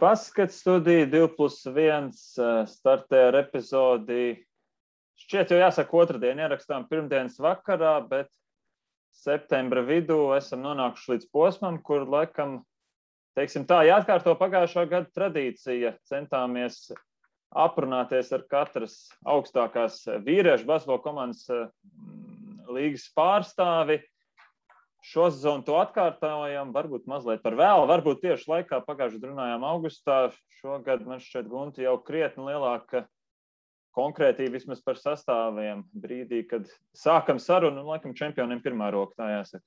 Baskets studija 2+1 startē ar epizodi. Šķiet jau jāsaka otrdien, ierakstām pirmdienas vakarā, bet septembra vidū esam nonākuši līdz posmam, kur laikam, teiksim tā, jāatkārto pagājušā gada tradīcija. Centāmies aprunāties ar katras augstākās vīriešu basketbola komandas līgas pārstāvi. Šo sezonu to atkārtojam, varbūt mazliet par vēlu, varbūt tieši laikā pagājušajā runājām augustā. Šogad man šķiet Gunti jau krietni lielāka konkrētība vismaz par sastāviem brīdī, kad sākam sarunu, laikam čempioniem pirmā roka, tā jāsaka.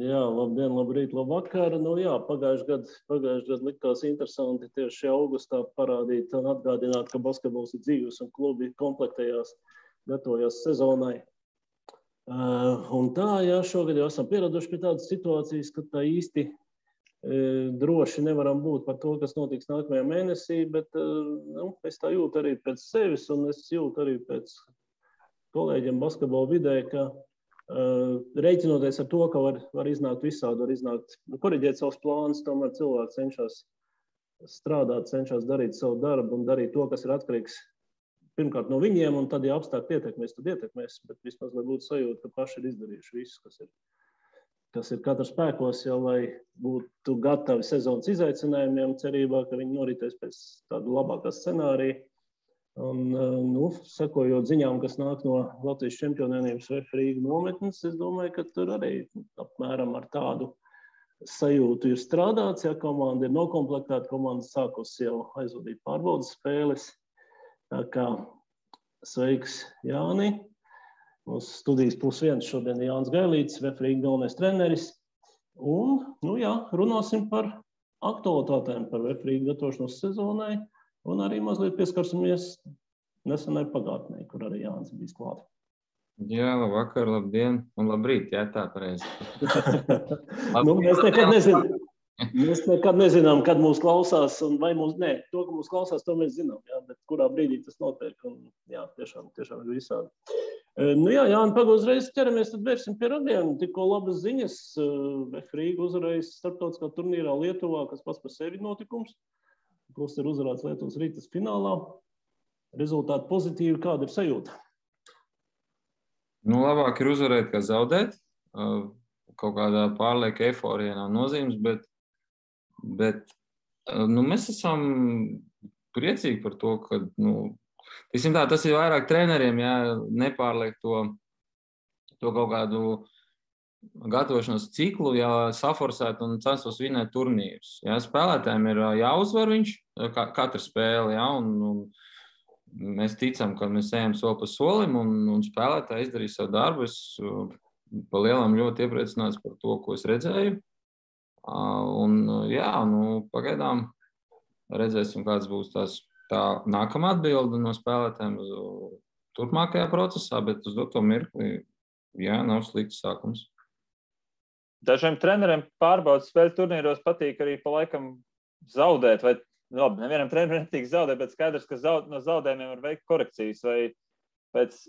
Jā, labdien, labrīt, labvakar. Pagājušajā gadu likās interesanti tieši augustā parādīt un atgādināt, ka basketbols ir dzīves un klubi komplektējās, gatavojās sezonai. Un tā, šogad jau esam pieraduši pie tādas situācijas, ka tā īsti droši nevaram būt par to, kas notiks nākamajā mēnesī, bet es tā jūtu arī pēc sevis un es jūtu arī pēc kolēģiem basketbola vidē, ka reiķinoties ar to, ka var iznākt visādi, var iznākt, koriģēt savus plānus, tomēr cilvēki cenšas strādāt, cenšas darīt savu darbu un darīt to, kas ir atkarīgs pirmkārt no viņiem, un tad, ja apstākļi ietekmēs, tad ietekmēs, bet vismaz, lai būtu sajūta, ka paši ir izdarījuši visu, kas ir katra spēkos, lai būtu gatavi sezonas izaicinājumiem, cerībā, ka viņi noritēs pēc tāda labākā scenārija. Un, sekojot ziņām, kas nāk no Latvijas čempionēnības VF Rīga nometnes, es domāju, ka tur arī apmēram ar tādu sajūtu ir strādāts, komanda ir nokomplektēta, komanda sākus jau aizvadīt pārbaudas spēles. Tā kā sveiks, Jāni. Mūsu studijas +1 šodien ir Jānis Gailītis, VF Rīga galvenais treneris. Un, runāsim par aktualitātēm, par VF Rīga gatavošanos sezonai un arī mazliet pieskarsimies nesenai pagātnē, kur arī Jānis bijis klāt. Jā, labvakar, labdien un labrīt, tā pareizi. Mēs nekad nezinām, kad mūs klausās, un vai mūs ne. To, ka mūs klausās, to mēs zinām, bet kurā brīdī tas notiek. Un, tiešām ir visādi. Jāni, uzreiz ķeramies, tad vērsim pie radiem. Tikko labas ziņas. VF Rīga uzvarējis starptautiskā turnīrā Lietuvā, kas pats par sevi notikums. Plus ir uzvarēts Lietuvas Ritas finālā. Rezultāti pozitīvi, kāda ir sajūta? Labāk ir uzvarēt, kā zaudēt. Kaut kādā pārlieka eiforijā nav nozīmes, bet mēs esam priecīgi par to, ka tas ir vairāk treneriem, nepārliek to kaut kādu gatavošanos ciklu, saforsēt un censtos vinēt turnīrus. Spēlētājiem ir jāuzvar viņš, katra spēle, un mēs ticam, ka mēs ejam soli pa solim un spēlētāji izdarīs savu darbu. Es pa lielam ļoti iepriecināts par to, ko es redzēju. Pagaidām redzēsim, kāds būs tā nākamā atbilde no spēlētājiem turpmākajā procesā, bet uz doto mirkli, nav slikts sākums. Dažiem treneriem pārbaudas spēļu turnīros patīk arī pa laikam zaudēt, vai nevienam trenerim netīk zaudēt, bet skaidrs, ka no zaudējumiem var veikt korekcijas, vai pēc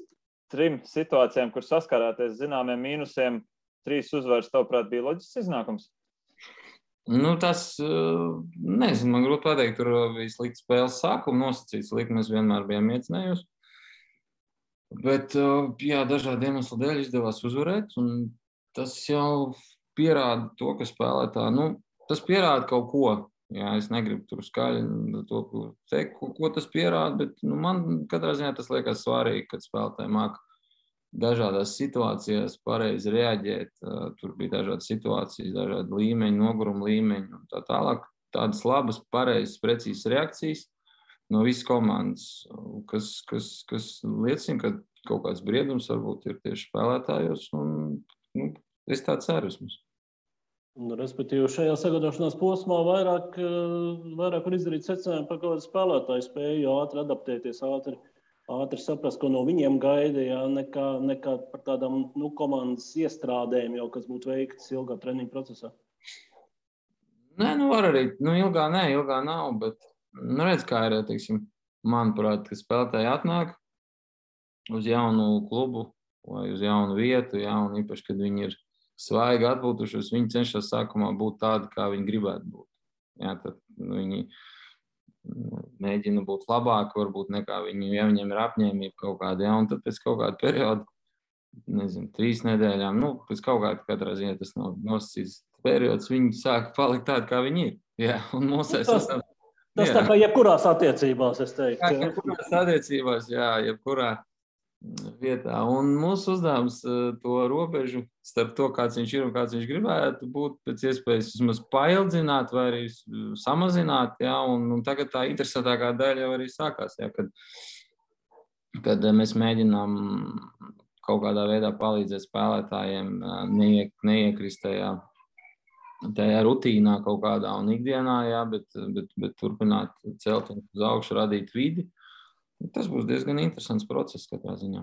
3 situācijām, kur saskarāties zināmiem mīnusiem, 3 uzvaras, tavuprāt, bija loģisks iznākums? Tas, nezinu, man grūti pateikt, tur bija slikts spēles sākuma nosacīts, likmes vienmēr bijām iecinējusi. Bet, dažādi iemesli dēļ izdevās uzvarēt, un tas jau pierāda to, ka spēlētāji, tas pierāda kaut ko. Es negribu tur skaļi to teikt, ko tas pierāda, bet man katrā ziņā tas liekas svarīgi, kad spēlētāji māca dažādās situācijās pareizi reaģēt. Tur bija dažādas situācijas, dažādi līmeņi, noguruma līmeņi un tā tālāk. Tādas labas, pareizas, precīzas reakcijas no visas komandas, kas liecina, ka kaut kāds briedums varbūt ir tieši spēlētājos. Es tā ceru vismaz. Respektīvi, šajā sagatavošanās posmā vairāk var izdarīt secinājumu par kādu spēlētāju spēju ātri adaptēties, ātri saprast, ko no viņiem gaida, nekā par tādām komandas iestrādēm, kas būtu veikts ilgā treniņa procesā. Nē, var arī. Ilgā nav, bet redz, kā ir, manuprāt, ka spēlētāji atnāk uz jaunu klubu vai uz jaunu vietu, un īpaši, kad viņi ir svaigi atpūtušies, viņi cenšas sākumā būt tādi, kā viņi gribētu būt. Jā, tad viņi mēģina būt labāki, varbūt nekā viņiem ir apņēmība kaut kāda, jā, un tad pēc kaut kāda perioda, 3 nedēļām, pēc kaut kāda katrā ziņā tas nav nosacīts periods, viņi sāk palikt tādi, kā viņi ir. Jā, un tas tā kā jebkurās attiecībās, es teiktu. Jebkurās attiecībās, jā, jebkurā vietā. Un mūsu uzdevums to robežu starp to, kāds viņš ir un kāds viņš gribētu būt, pēc iespējas vismaz paildzināt vai arī samazināt. Jā, un tagad tā interesantākā daļa jau arī sākās, jā, kad mēs mēģinām kaut kādā veidā palīdzēt spēlētājiem neiekrist tajā rutīnā kaut kādā un ikdienā, jā, bet turpināt celt un uz augšu, radīt vidi. Tas būs diezgan interesants process katrā ziņā.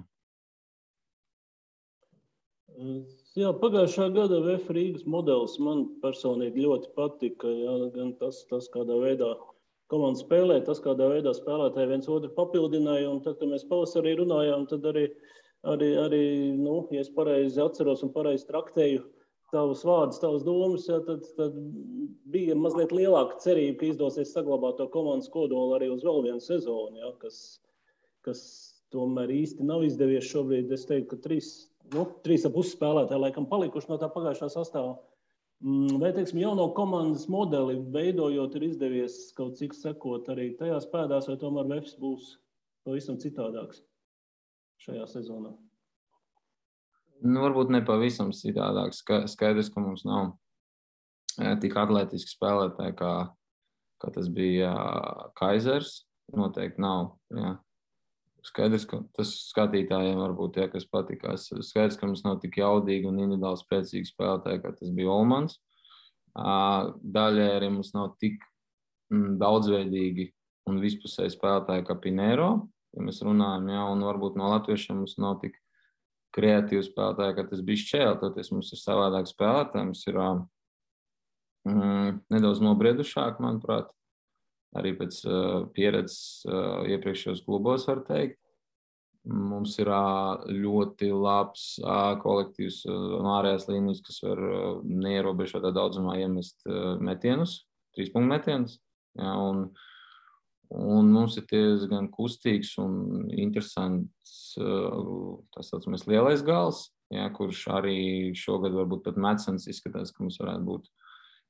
Jā, pagājušā gada VF Rīgas modelis man personīgi ļoti patika. Jā, gan tas kādā veidā komanda spēlē, tas kādā veidā spēlētāji viens otru papildināja. Un tad, kad mēs pavasarī runājām, tad arī ja es pareizi atceros un pareizi traktēju tavus vārdus, tavas domas, jā, tad bija mazliet lielāka cerība, ka izdosies saglabāt to komandas kodolu arī uz vēl vienu sezonu, jā, kas tomēr īsti nav izdevies šobrīd. Es teiktu, ka 3,5 spēlētāji laikam palikuši no tā pagājušā sastāvā. Vai, teiksim, jauno komandas modeli veidojot ir izdevies kaut cik sekot arī tajās pēdās, vai tomēr VFs būs pavisam citādāks šajā sezonā? Varbūt ne pavisam citādāks. Skaidrs, ka mums nav tik atletiski spēlētāji, kā tas bija Kaisers. Noteikti nav. Jā. Skaidrs, ka tas skatītājiem varbūt, ja, kas patikās. Skaidrs, ka mums nav tik jaudīgi un individuāli spēcīgi spēlētāji, kā tas bija Olmans. Daļai arī mums nav tik daudzveidīgi un vispusēji spēlētāji kā Pinero, ja mēs runājam, jā, un varbūt no latviešiem mums nav tik kreatīvi spēlētāji, kā tas bija Šķēle. Toties mums ir savādāk spēlētāji, mums ir nedaudz nobriedušāk, manuprāt. Arī pēc pieredzes iepriekšējos klubos, var teikt. Mums ir ļoti labs kolektīvs ārējās līnijas, kas var neierobežotā daudzumā iemest metienus, 3-punktu metienus. Jā, un mums ir diezgan kustīgs un interesants tas saucamais lielais gals, jā, kurš arī šogad varbūt pat Metsens izskatās, ka mums varētu būt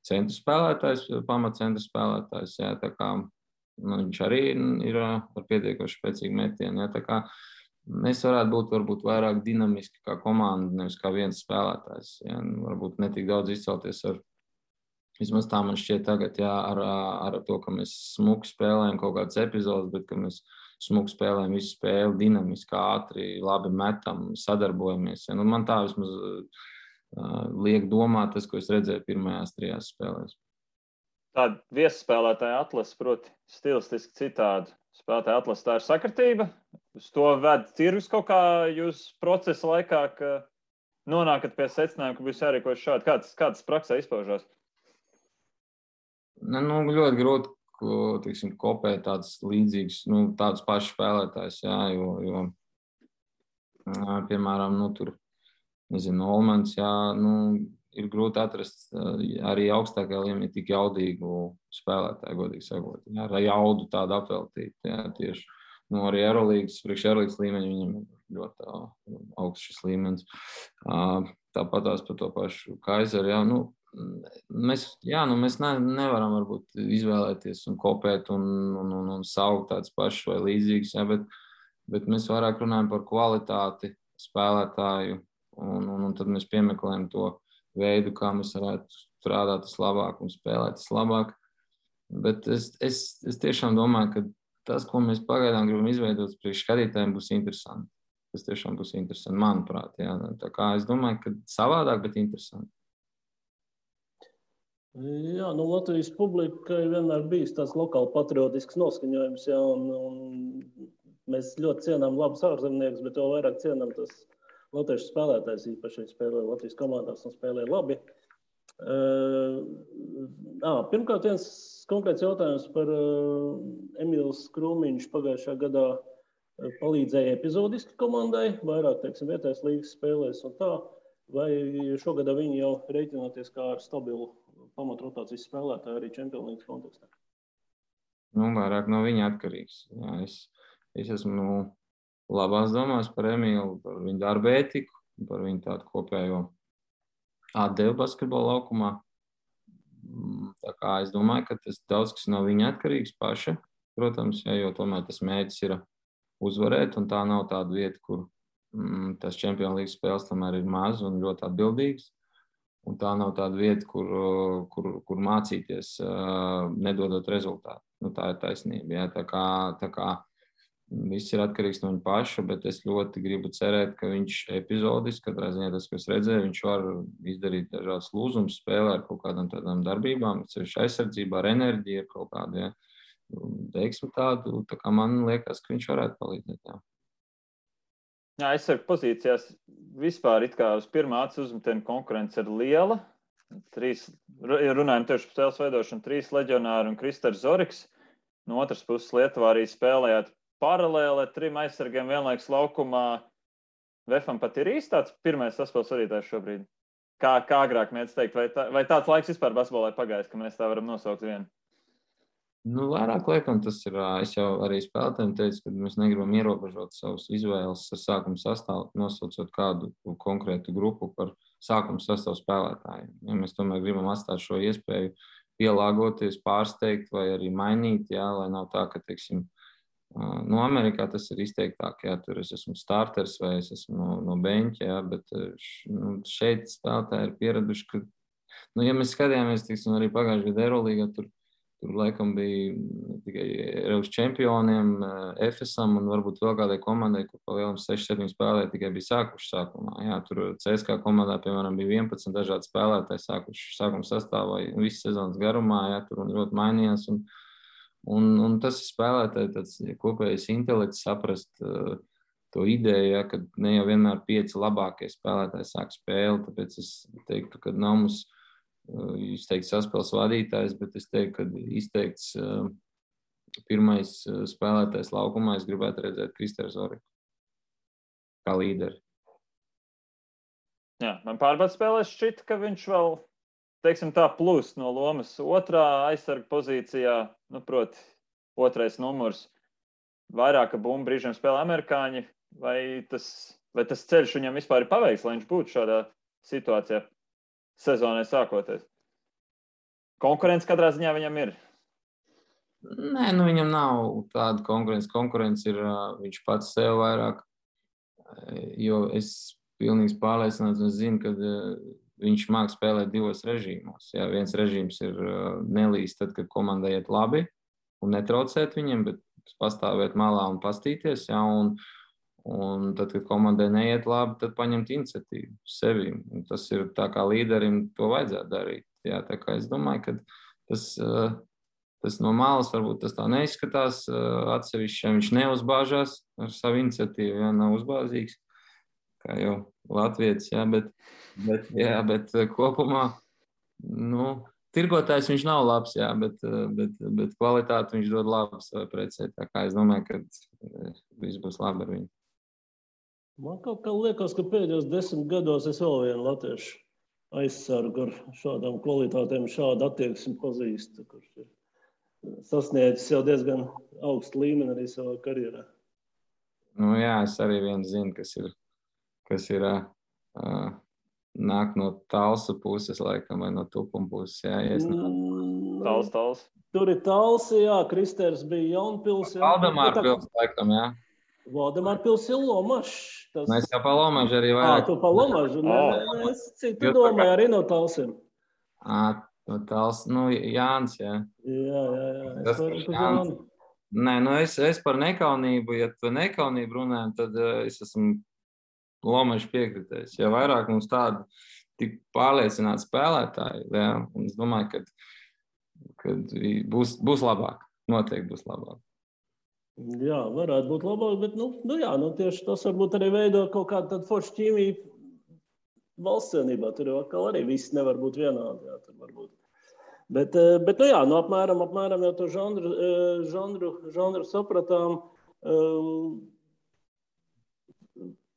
centra spēlētājs, pamatcentra spēlētājs, jā, tā kā viņš arī ir ar pietiekoši spēcīgu metienu, jā, tā kā mēs varētu būt varbūt vairāk dinamiski kā komanda, nevis kā viens spēlētājs, jā, varbūt netik daudz izcelties ar, vismaz tā man šķiet tagad, jā, ar to, ka mēs smuki spēlējam kaut kādas epizodes, bet ka mēs smuki spēlējam visu spēli, dinamiski, ātri, labi metam, sadarbojamies, jā, man tā vismaz liek domāt tas, ko es redzēju pirmajās 3 spēlēs. Tāda viesspēlētāja atlase, proti, stilistiski citādi. Spēlētāja atlase, tā ir sakritība. Uz to ved tirgus kaut kā jūs procesa laikā, ka nonākat pie secinājuma, ka būs jārīkojas šādi. Kāds praksē izpaužās? Ļoti grūti, teiksim, kopēt tādus līdzīgus, tādus pašus spēlētājus, jā, jo piemēram, tur Olmans, jā, ir grūti atrast arī augstākajā līmenī tik jaudīgu spēlētāju, godīgi sakot. Jā, ar jaudu tādu apveltīt, jā, tieši. Arī Eurolīgas, priekš Eurolīgas līmeņa viņam ir ļoti augsts šis līmenis. Tāpatās par to pašu Kaiseru, jā, mēs nevaram varbūt izvēlēties un kopēt un saukt tādus pašus vai līdzīgus, jā, bet mēs vairāk runājam par kvalitāti spēlētāju. Un tad mēs piemeklējam to veidu, kā mēs varētu strādāt vislabāk un spēlēt vislabāk. Bet es tiešām domāju, ka tas, ko mēs pagaidām gribam izveidot priekš skatītājiem, būs interesanti. Tas tiešām būs interesanti, manuprāt. Jā. Tā kā es domāju, ka savādāk, bet interesanti. Jā, Latvijas publikai vienmēr bijis tāds lokāli patriotisks noskaņojums, jā, un mēs ļoti cienām labus ārzemniekus, bet vēl vairāk cienām tas latviešu spēlētājs īpaši spēlē Latvijas komandās un spēlē labi. Pirmkārt, viens konkrēts jautājums par Emīls Krūmiņš pagājušā gadā palīdzēja epizodiski komandai, vairāk, teiksim, vietējās līgas spēlēs un tā, vai šogad viņi jau reiķinoties kā ar stabilu pamatrotācijas spēlētāji arī Champions League kontekstā. Nu, vairāk no viņa atkarīgs. Jā, es esmu labās domās par Emīlu, par viņu darba ētiku, par viņu tādu kopējo atdevu basketbola laukumā. Tā kā es domāju, ka tas daudz kas no viņa atkarīgs paša, protams, jo tomēr tas mērķis ir uzvarēt, un tā nav tāda vieta, kur tas Champions League spēles tomēr ir maz un ļoti atbildīgs. Un tā nav tāda vieta, kur mācīties, nedodot rezultātu. Nu, tā ir taisnība. Jā. Tā kā viss ir atkarīgs no viņa paša, bet es ļoti gribu cerēt, ka viņš epizodiski, katrā ziņā tas, ko es redzēju, viņš var izdarīt dažādas lūzumus, spēlē ar kaut kādām tādām darbībām, ceļš aizsardzībā, ar enerģiju, ar kaut kādu, teiksim tādu, tā kā man liekas, ka viņš varētu palīdzēt. Jā. Jā, aizsargu pozīcijās vispār it kā uz pirmā acu uzmetiena konkurence ir liela. Runājam tieši par spēles veidošanu, 3 leģionāri un Kristers Zoriks. No otras puses Lietuvā arī spēlējāt paralēli ar 3 aizsargiem vienlaikus laukumā. Vefam pat ir īsti tāds pirmais saspēles vadītājs šobrīd. Kā agrāk mēdz teikt, vai tāds laiks vispār basketbolā pagājis, ka mēs tā varam nosaukt vienu? Nu, vairāk liekam, tas ir, es jau arī spēlētājiem teicu, ka mēs negribam ierobežot savus izvēles ar sākuma sastāvu, nosaucot kādu konkrētu grupu par sākuma sastāvu spēlētājiem. Ja mēs tomēr gribam atstāt šo iespēju pielāgoties, pārsteigt vai arī mainīt, jā, lai nav tā, ka, teiksim, no Amerikā tas ir izteiktāk, jā, tur es esmu starters vai es esmu no beņķa, jā, bet šeit spēlētāji ir pieraduši, ka, ja mēs skatījāmies, teiksim, arī pagājušajā gada Eurolīgā, tur laikam bija tikai Eiropas čempioniem, Efesam un varbūt vēl kādai komandai, kur pa lielam 6-7 spēlētāji tikai bija sākuši sākumā. Jā, tur CSKA komandā, piemēram, bija 11 dažādi spēlētāji sākuši sākuma sastāvā visas sezonas garumā, jā, tur un ļoti mainījās. Un tas ir spēlētāji tāds kopējais intelekts saprast to ideju, jā, ka ne jau vienmēr 5 labākie spēlētāji sāk spēli, tāpēc es teiktu, ka nav mums izteikts saspēles vadītājs, bet es teiktu, ka izteikts pirmais spēlētājs laukumā, es gribētu redzēt Kristēru Zoriku kā līderi. Jā, man pārbaudas spēlēs šķita, ka viņš vēl, teiksim tā, plus no lomas otrā aizsarga pozīcijā, nu, proti, otrais numurs, vairāka bumba brīžiem spēlē amerikāņi, vai tas ceļš viņam vispār ir paveiks, lai viņš būtu šādā situācijā? Sezonai sākoties. Konkurence katrā ziņā viņam ir. Nē, nu viņam nav tāda konkurence. Konkurence ir viņš pats sev vairāk, jo es pilnīgi pārliecināts un zinu, ka viņš māk spēlēt 2 režīmos. Jā, viens režīms ir nelīst tad, kad komandai iet labi un netraucēt viņiem, bet pastāvēt malā un pastīties, jā, un tad, kad komandai neiet labi, tad paņemt iniciatīvu sevi. Un tas ir tā kā līderim to vajadzētu darīt. Jā, tā kā es domāju, ka tas no malas varbūt tas tā neizskatās. Atsevišķi viņš neuzbāžās ar savu iniciatīvu, jā, nav uzbāzīgs, kā jau latvietis, jā, bet kopumā, nu, tirgotājs viņš nav labs, jā, bet kvalitāti viņš dod labu savai precē. Tā kā es domāju, ka viss būs labi ar viņu. Man kaut kā liekas, ka pēdējos 10 gados es vēl vienu latviešu aizsargu ar šādām kvalitātēm, šādu attieksmi pazīstu, kurš ir sasniedzis jau diezgan augstu līmeni arī savā karjerā. Nu jā, es arī vienu zinu, kas ir nāk no Talsu puses, laikam, vai no Tupuma puses, jā. Tals. Tur ir Talsi, jā, Kristers bija Jaunpils. Valdemārpils, laikam, jā. Valdemārpils ir Lomašs. Mēs jau pa Lomažu arī vairāk. Tu pa Lomažu? Nē, es citu domāju arī no Talsiem. No Tals, nu, Jānis, jā. Jā. Es varu par Jāni. Nē, nu es par nekaunību, ja tu nekaunību runājam, tad es esmu Lomažu piekritējis. Ja vairāk mums tādi tik pārliecināti spēlētāji, jā, un es domāju, ka būs labāk. Noteikti būs labāk. Jā, varētu būt labāk, bet tieši tas varbūt arī veido kaut kādu tādu foršu ķīmiju valsts cienībā. Tur jau atkal arī viss nevar būt vienādi. Jā, tur var būt. Bet apmēram jau to žanru sapratām.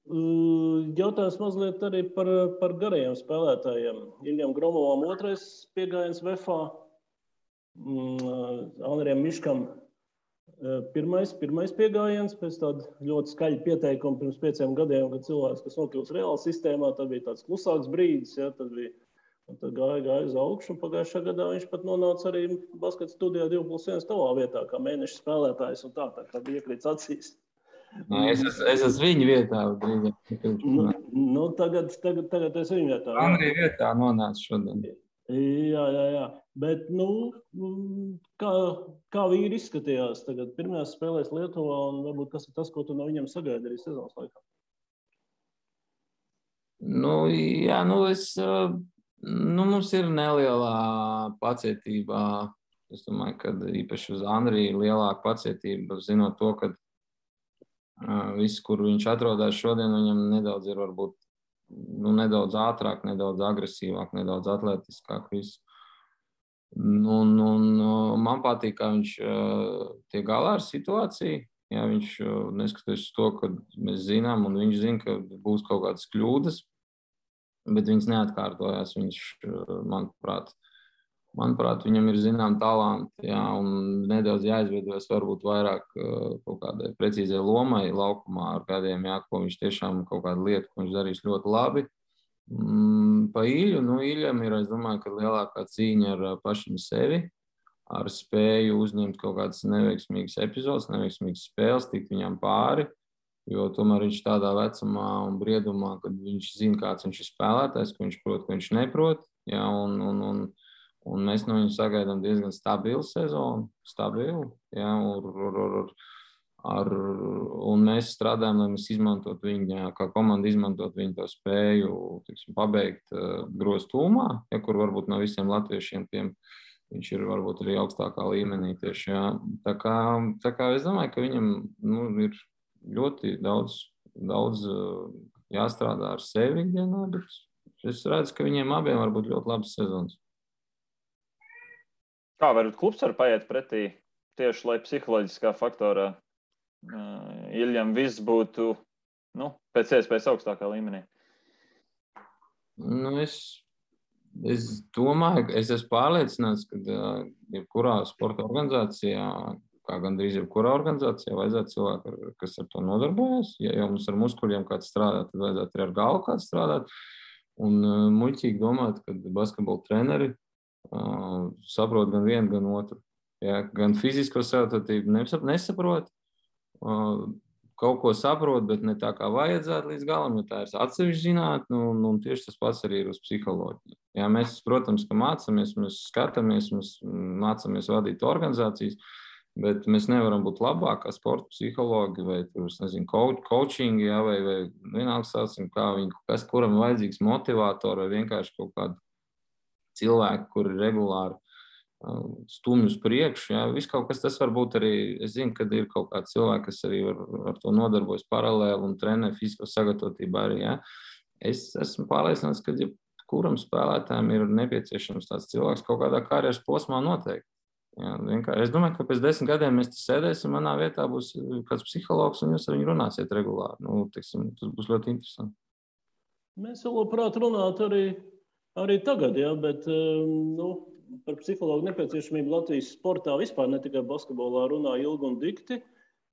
Jautājums mazliet arī par garajiem spēlētājiem. Iljam Gromovam 2. piegājiens VFA, Andrijam Miškam pirmais piegājiens pēc tāda ļoti skaļa pieteikuma pirms 5 gadiem, kad cilvēks, kas nokļūst reāli sistēmā, tad bija tāds klusāks brīdis, ja, tad gāja uz augšu, un pagājušā gadā viņš pat nonāca arī basketa studijā 2+1 tavā vietā, kā mēneša spēlētājs, un tā bija iekrīts acīs. Es esmu viņa vietā. Tagad es viņa vietā. Andrija vietā nonāca šodien. Jā. Bet, kā vīri izskatījās tagad pirmajās spēlēs Lietuvā, un varbūt kas ir tas, ko tu no viņiem sagaidi arī sezonas laikā? Mums ir nelielā pacietība. Es domāju, ka īpaši uz Andriju ir lielāka pacietība, zinot to, ka viss, kur viņš atrodas šodien, viņam nedaudz ir varbūt nedaudz ātrāk, nedaudz agresīvāk, nedaudz atletiskāk viss. Man patīk, kā viņš tiek galā ar situāciju. Jā, viņš neskatoties uz to, ka mēs zinām, un viņš zina, ka būs kaut kādas kļūdas, bet viņas neatkārtojās. Viņš, manuprāt, viņam ir zinām talanti, jā, un nedaudz jāizveidojas varbūt vairāk kaut kādai precīzai lomai laukumā ar kādiem, jā, ko viņš tiešām kaut kādu lietu, ko viņš darīs ļoti labi. Pa Ilju, Iljam ir, es domāju, ka lielākā cīņa ar pašam sevi, ar spēju uzņemt kaut kādas neveiksmīgas epizodes, neveiksmīgas spēles, tikt viņam pāri, jo tomēr viņš tādā vecumā un briedumā, kad viņš zina, kāds viņš ir spēlētājs, ko viņš prot, ko viņš neprot, jā, un mēs no viņu sagaidām diezgan stabilu sezonu, jā, un mēs strādājam, lai mēs izmantot viņu, jā, kā komanda izmantot viņu to spēju, pabeigt groztūmā, ja, kur varbūt no visiem latviešiem tiem viņš ir varbūt arī augstākā līmenī tieši, jā. Tā kā es domāju, ka viņam ir ļoti daudz jāstrādā ar sevi ikdienā, bet es redzu, ka viņiem abiem var būt ļoti labas sezonas. Kā varbūt klubs var paiet pretī tieši, lai psiholoģiskā faktorā Iljam viss būtu pēc iespējas augstākā līmenī? Es domāju, es esmu pārliecināts, ka jebkurā sporta organizācijā, kā gandrīz jebkurā organizācijā, vajadzētu cilvēku, kas ar to nodarbojas. Ja jau mums ar muskuļiem kāds strādā, tad vajadzētu arī ar galvu kāds strādāt. Un muļķīgi domāt, ka basketbola treneri saprot gan vienu, gan otru. Ja, gan fizisko sagatavotību nesaprot, kaut ko saprot, bet ne tā kā vajadzētu līdz galam, jo tā ir atsevišķa zinātne, un tieši tas pats arī ir uz psiholoģiju. Ja, mēs, protams, ka mācāmies, mēs skatāmies, mēs mācāmies vadīt organizācijas, bet mēs nevaram būt labāk kā sporta psihologi vai, coachingi, ja, vai vienalga sācim, kuram ir vajadzīgs motivatori vai vienkārši kaut kādu cilvēku, kuri regulāri stumj uz priekšu. Ja. Viss kaut kas tas var būt arī, es zinu, ka ir kaut kāds cilvēki, kas arī ar to nodarbojas paralēli un trenē fizisko sagatavotību arī. Ja. Es esmu pārliecināts, ka kuram spēlētājiem ir nepieciešams tāds cilvēks kaut kādā karjeras posmā noteikti. Ja. Es domāju, ka pēc 10 gadiem mēs te sēdēsim, manā vietā būs kāds psihologs un jūs ar viņu runāsiet regulāri. Tas būs ļoti interesanti. Mēs vēl labprāt runāt arī tagad, ja, bet par psihologu nepieciešamību Latvijas sportā vispār, ne tikai basketbolā, runā ilgi un dikti.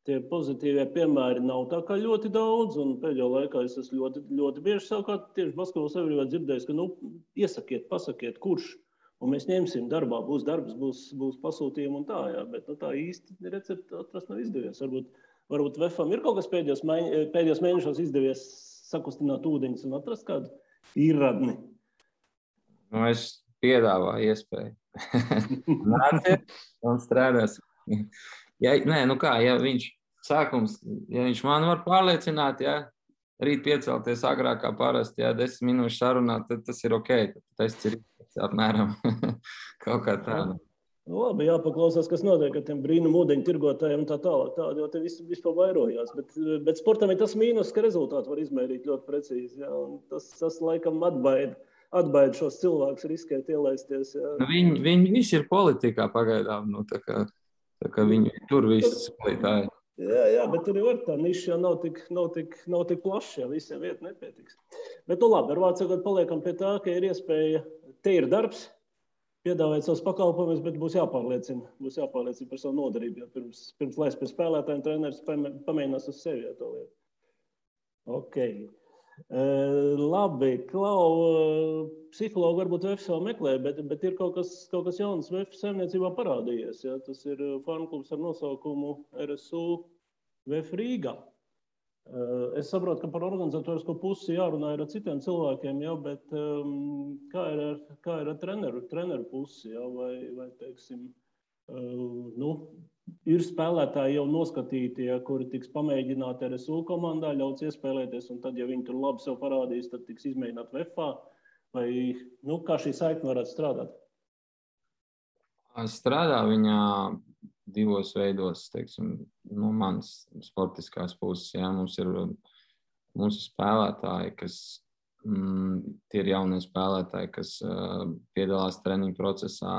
Tie pozitīvie piemēri nav tā kā ļoti daudz, un pēdējā laikā es esmu ļoti, ļoti bieži savukārt tieši basketbola sabiedrībā dzirdējis, ka iesakiet, pasakiet, kurš, un mēs ņemsim darbā, būs darbs, būs pasūtījumi un tā, jā, bet tā īsti recepti atrast nav izdevies. Varbūt VFam ir kaut kas pēdējos mēnešos izdevies sakustināt ūdeņus un atrast kādu īrradni. Es piedāvāju iespēju. Nāciet un strādās. Ja viņš man var pārliecināt, ja rīt piecelties agrāk kā parasti, ja 10 minūšu sarunāt, tad tas ir ok. Tas ir apmēram kaut kā tāda. Labi, jāpaklausās, kas notiek ar tiem brīnumu ūdeņu tirgotājiem un tā tālāk. Tādi jau te vispār vairojās. Bet sportam ir tas mīnus, ka rezultātu var izmērīt ļoti precīzi. Ja? Tas laikam atbaida šos cilvēkus riskēt ielaisties. Ja? Viņi visi ir politikā pagaidām. Tā kā viņi tur visi spēlētāji. Jā, bet tur jau tā niša jau nav tik plaša, ja visiem vieta nepietiks. Bet, nu labi, ar vārdu sakot, paliekam pie tā, ka ir iespēja, te ir darbs, piedāvāt savus pakalpojumus, bet būs jāpārliecina par savu nodarību, jo pirms laist pie spēlētājiem treneris pamēģinās uz sevi to lietu. Ok. Labi, Klau, psihologu varbūt VF vēl meklē, bet ir kaut kas jauns VF saimniecībā parādījies. Ja? Tas ir farmklubs ar nosaukumu RSU VF Rīgā. Es saprotu, ka par organizatorisko pusi jārunā ir ar citiem cilvēkiem, ja? Bet kā ir ar treneru pusi? Ja? Vai teiksim, ir spēlētāji jau noskatīti, ja, kuri tiks pamēģināti RSU komandā, ļauts iespēlēties, un tad, ja viņi tur labi sev parādīs, tad tiks izmēģināt VFā, vai kā šī saikne varētu strādāt? Strādā viņā divos veidos, teiksim, no manas sportiskās puses. Ja, mums ir spēlētāji, kas tie ir jaunie spēlētāji, kas piedalās treniņu procesā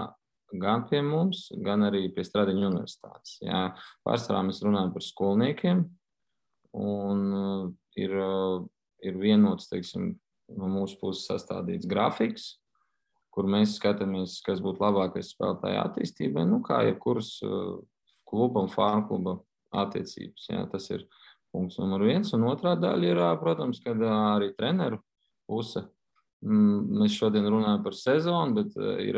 gan pie mums, gan arī pie Stradiņu universitātes. Jā, pārsvarā mēs runājam par skolniekiem, un ir vienots, teiksim, no mūsu puses sastādīts grafiks, kur mēs skatāmies, kas būtu labākais spēlētāja attīstībai, kā jebkuras kluba un farmkluba attiecības. Jā, tas ir punkts numur 1, un otrā daļa ir, protams, kad arī treneru puse. Mēs šodien runājam par sezonu, bet ir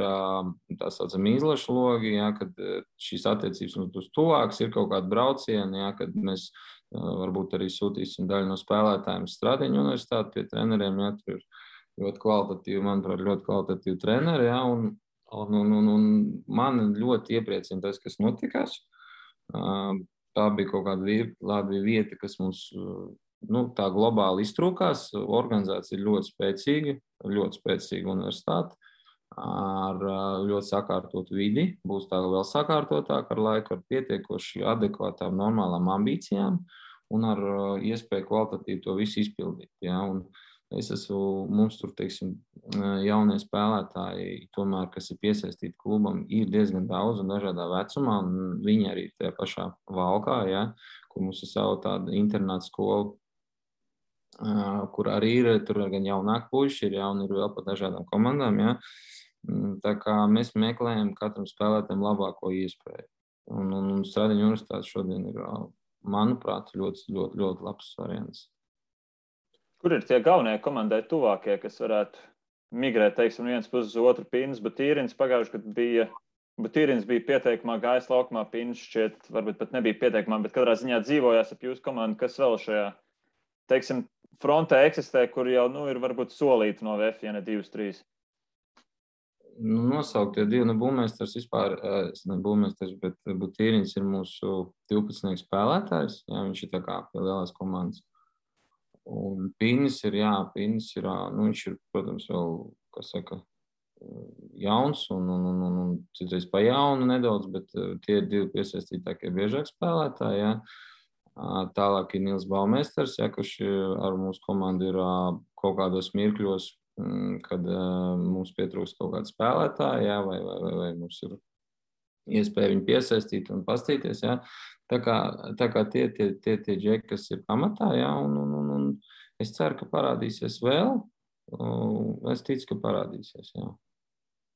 tā saucama izlašu logi, ja, kad šīs attiecības mums būs tuvākas, ir kaut kādi braucieni, ja, kad mēs varbūt arī sūtīsim daļu no spēlētājiem Stradiņu universitāti pie treneriem, ja, tur ir ļoti kvalitatīvi, manuprāt, ļoti kvalitatīvi treneri, ja, un man ļoti iepriecina tas, kas notikās. Tā bija kaut kāda labi vieta, kas mums tā globāli iztrūkās. Organizācija ir ļoti spēcīga universitāte ar ļoti sakārtotu vidi. Būs tā vēl sakārtotāk ar laiku, ar pietiekoši adekvātām, normālām ambīcijām un ar iespēju kvalitatīvi to visu izpildīt. Ja? Un mums tur, teiksim, jaunie spēlētāji, tomēr, kas ir piesaistīti klubam, ir diezgan daudz un dažādā vecumā, un viņi arī tajā pašā Valkā, ja? Kur mums ir savu tādu internātu skolu, kur arī ir, tur gan jaunāki puiši, ir jauni, ir vēl pa dažādām komandām, ja. Tā kā mēs meklējam katram spēlētājam labāko iespēju. Un Stradiņu universitāte šodien ir, manuprāt, ļoti, ļoti, ļoti labs variants. Kur ir tie galvenie komandai tuvākie, kas varētu migrēt, teiksim, viens puses uz otru? Pīns, Butīrins pagājuši, kad Butīrins bija pieteikumā, gājis laukumā, Pīns šķiet, varbūt pat nebija pieteikumā, bet katrā ziņā dzīvojās ap jūsu komandu, kas vēl šajā, teiksim, frontē eksistē, kur jau ir varbūt solīti no VF, ja ne 2-3. Nosauktie divi, būvmeistars vispār, būvmeistars, bet Butīrins ir mūsu 12 spēlētājs, jā, viņš ir tā kā pie lielās komandas. Un Pīnis ir, viņš ir, protams, vēl, kas saka, jauns un citreiz pa jaunu nedaudz, bet tie ir divi piesaistītākie biežāk spēlētāji, jā. Tālāk ir Nils Baumēsters, ja, kurš ar mūsu komandu ir kaut kādos mirkļos, kad mums pietrūkst kaut kāda spēlētāja, ja, vai mums ir iespēja viņu piesaistīt un pastīties. Ja. Tā kā tie džeki, kas ir pamatā, ja, un es ceru, ka parādīsies vēl. Es ticu, ka parādīsies. Ja.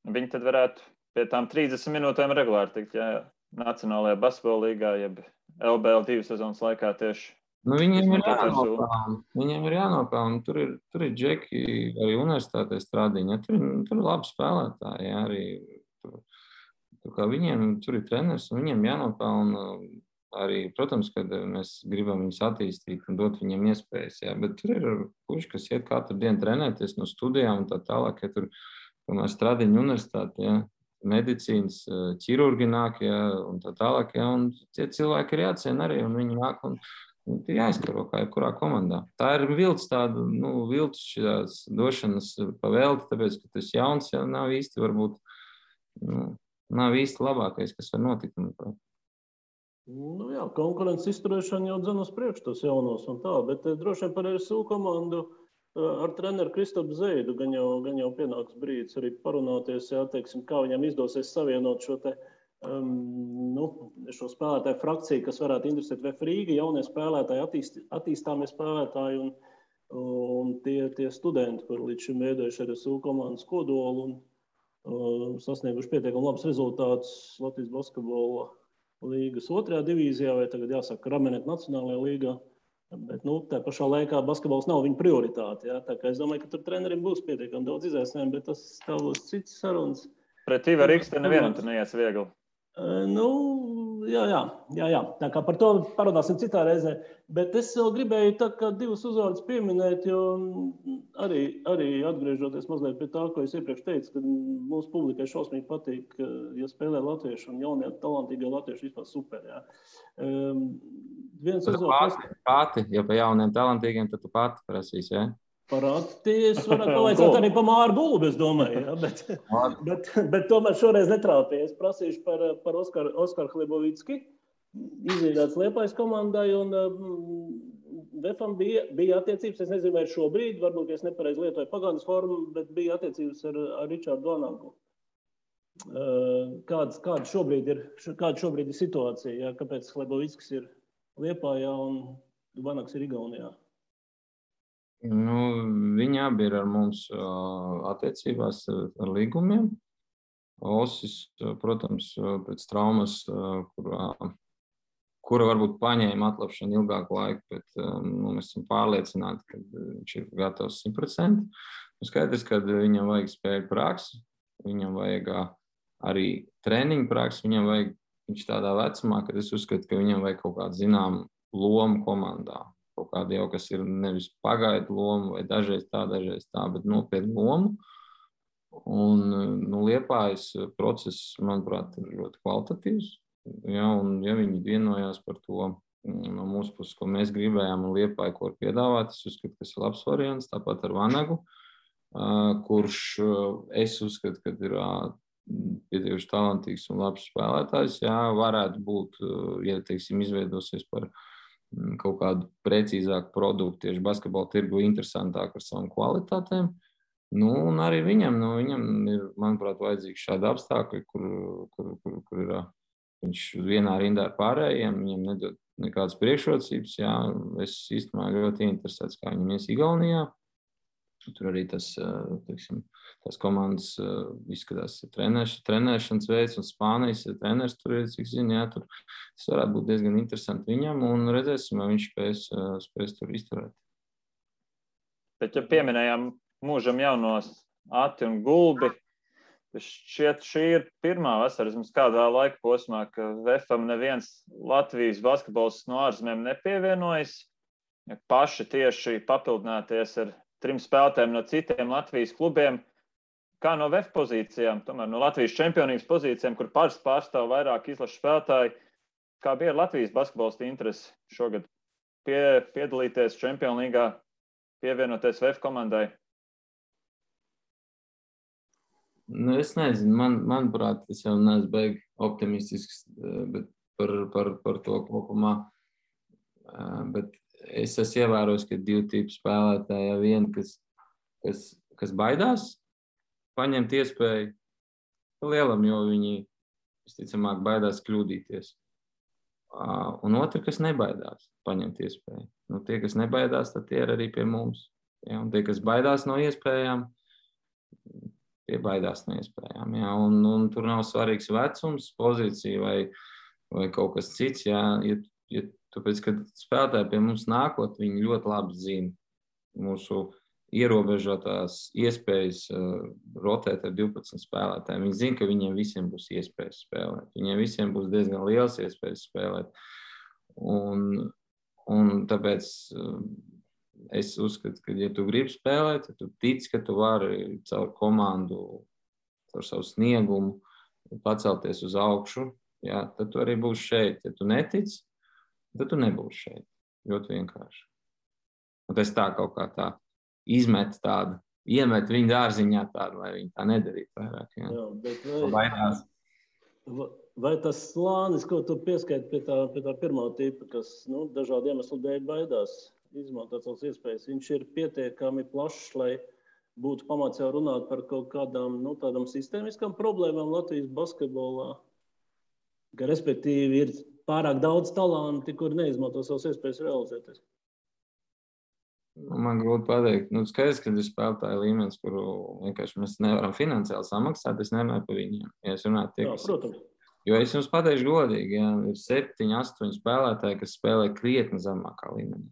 Viņi tad varētu pie tām 30 minūtēm regulāri tikt, ja, Nacionālajā basketbola līgā, jeb LBL 2 sezonas laikā tieši. Viņiem ir jānopelna. Tur ir džeki arī universitātē Stradiņa. Tur ir labi spēlētāji. Ja, arī tur ir treneris un viņiem jānopelna. Arī, protams, kad mēs gribam viņus attīstīt un dot viņiem iespējas. Ja, bet tur ir puiši, kas iet katru dienu trenēties no studijām un tā tālāk. Ja tur Stradiņa universitāte, ja, medicīnas, ķirurgi nāk, ja, un tā tālāk. Ja, un tie cilvēki ir jāciena arī un viņi nāk un ir jāizkaro kā jebkurā komandā. Tā ir vilts šīs došanas pavēlti, tāpēc, ka tas jauns jau nav īsti varbūt, nav īsti labākais, kas var notikt. Jā, konkurences izturēšana jau dzen uz priekšu tos jaunos un tā, bet droši vien par RSU komandu ar treneru Kristapu Zeidu gan jau pienāks brīdis arī parunāties, jā, teiksim, kā viņam izdosies savienot šo te šo spēlētāju frakciju, kas varētu interesēt VF Rīga, jaunie spēlētāji, attīstāmie spēlētāji un tie studenti, kur līdz šim veidojuši RSU komandas kodolu un sasnieguši pietiekami labus rezultātus Latvijas basketbola līgas 2. divīzijā, vai tagad jāsaka Ramenet Nacionālajā līgā. Bet tā pašā laikā basketbols nav viņa prioritāte. Ja? Tā kā es domāju, ka tur treneriem būs pietiekami daudz izaicinājumu, bet tas būs cits sarunas. Pret Ivaru Rīgas te nevienam tur neies viegli. Jā. Tā kā par to parunāsim citā reizē. Bet es vēl gribēju tā kā divus uzvārdus pieminēt, jo arī atgriežoties mazliet pie tā, ko es iepriekš teicu, ka mūsu publikai šausmīgi patīk, ja spēlē latvieši un jaunie talantīgie latvieši vispār super. Jā. Viens uzvārds. Pati, ja pa jauniem talantīgiem, tad tu pati prasīs, jā? Parādīties varētu pavaicāt arī pa Māru Gulbu, es domāju, ja? bet tomēr šoreiz netrāpīja. Es prasīšu par Oskaru Hlebovicki, izveidāts Liepājas komandai, un VFam bija attiecības, es nezinu, vai šobrīd, varbūt es nepareizi lietoju pagātnes formu, bet bija attiecības ar Ričārdu Vanagu. Kāda šobrīd ir situācija, ja? Kāpēc Hlebovicks ir Liepājā un Vanags ir Igaunijā? Viņi abi ir ar mums attiecībās ar līgumiem. Osis, protams, pēc traumas, kura varbūt paņēma atlapšanu ilgāku laiku, bet mēs esam pārliecināti, ka viņš ir gatavs 100%. Skaidrs, ka viņam vajag spēļu praksi, viņam vajag arī treniņu praksi, viņš tādā vecumā, kad es uzskatu, ka viņam vajag kaut kādu zināmu lomu komandā. Kaut kāda jau, kas ir nevis pagaidu loma, vai dažreiz tā, bet nopietnu lomu. Un Liepājas process, manuprāt, ir ļoti kvalitatīvs. Ja, un ja viņi vienojās par to no mūsu puses, ko mēs gribējām, un Liepāja, ko ir piedāvāt, es uzskatu, ka tas ir labs variants, tāpat ar Vanagu, kurš es uzskatu, ka ir pietiekuši talantīgs un labs spēlētājs. Jā, varētu būt, ja, teiksim, izveidosies par kaut kādu precīzāku produktu, tieši basketbola tirgu interesantāk ar savām kvalitātēm. Un arī viņam ir, manuprāt, vajadzīgi šādi apstākļi, kur ir viņš vienā rindā ar pārējiem, viņam nedod nekādas priekšrocības. Jā, es īstenībā ļoti interesēts, kā viņam ies Igaunijā. Tur arī tas komandas izskatās trenēšanas veids, un Spānijas treneris tur ir, cik zinu, jā, tur tas varētu būt diezgan interesanti viņam, un redzēsim, vai viņš spēs tur izturēt. Bet, ja pieminējām mūžam jaunos Ati un Gulbi, šķiet, šī ir pirmā vasara, vismaz kādā laika posmā, ka VFam neviens Latvijas basketbols no ārzemēm nepievienojas, ja paši tieši papildināties ar 3 spēlētājiem no citiem Latvijas klubiem, kā no VF pozīcijām, tomēr no Latvijas čempionības pozīcijām, kur pārstāv vairāk izlašu spēlētāji, kā bija Latvijas basketbolista interesi šogad piedalīties Čempionu līgā, pievienoties VF komandai? Es nezinu, manuprāt, es jau neesmu baigi optimistisks, bet par to kopumā, bet es esmu ievērojis, ka 2 tipu spēlētāji, viena, kas baidās paņemt iespēju lielam, jo viņi visticamāk baidās kļūdīties. Un otra, kas nebaidās paņemt iespēju. Tie, kas nebaidās, tad tie ir arī pie mums. Ja? Un tie, kas baidās no iespējām, tie baidās no iespējām. Ja? Un tur nav svarīgs vecums, pozīcija vai kaut kas cits. Ja? Tāpēc, kad spēlētāji pie mums nākot, viņi ļoti labi zina mūsu ierobežotās iespējas rotēt ar 12 spēlētājiem. Viņi zina, ka viņiem visiem būs iespējas spēlēt. Viņiem visiem būs diezgan liels iespējas spēlēt. Un tāpēc es uzskatu, ka, ja tu gribi spēlēt, ja tu tici, ka tu vari caur komandu, caur savu sniegumu pacelties uz augšu, jā, tad tu arī būsi šeit. Ja tu netici, tad tu nebūsi šeit. Ļoti vienkārši. Un tas tā kaut kā tā iemet viņu dārziņā tādu, lai viņi tā nedarītu vairāk. Jā, bet vai tas slānis, ko tu pieskaiti pie tā pirmā tipa, kas dažādu iemeslu dēļ baidās izmantot savas iespējas, viņš ir pietiekami plašs, lai būtu pamats jau runāt par kaut kādām tādām sistēmiskām problēmām Latvijas basketbolā? ka respektīvi ir pārāk daudz talanti, kur neizmanto savas iespējas realizēties. Man grūti pateikt. Skaidrs, ka ir spēlētāji līmenis, kuru vienkārši mēs nevaram finansiāli samaksāt. Es nerunāju par viņiem. Ja es runāju tie, Protams. Jo es jums pateikšu godīgi, ja ir 7, 8 spēlētāji, kas spēlē krietni zemākā līmenī.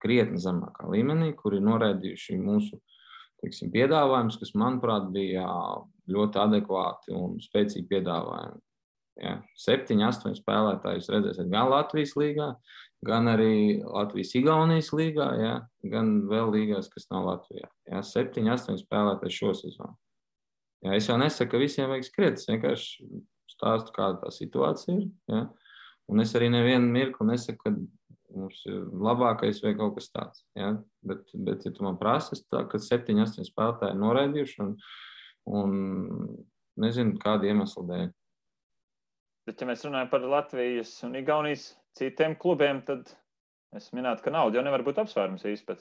Krietni zemākā līmenī, kuri noraidījuši mūsu, teiksim, piedāvājumus, kas, manuprāt, bija ļoti adekvāti un spēcīgi piedāvājumi. Ja, 7, 8 spēlētāji jūs redzēsiet gan Latvijas līgā, gan arī Latvijas-Igaunijas līgā, ja, gan vēl līgās, kas nav Latvijā. Ja, 7, 8 spēlētāji šo sezonu. Ja, es jau nesaku, ka visiem vajag skriet, es vienkārši stāstu, kāda tā situācija ir. Ja, un es arī nevienu mirkli nesaku, ka mums ir labākais vai kaut kas tāds. Ja, bet ja tu man prasi, tā, ka 7, 8 spēlētāji noraidījuši un nezinu, kādu iemeslu dēļ. Bet, ja mēs runājam par Latvijas un Igaunijas citiem klubiem, tad es minētu, ka nauda jau nevar būt apsvērums īsti.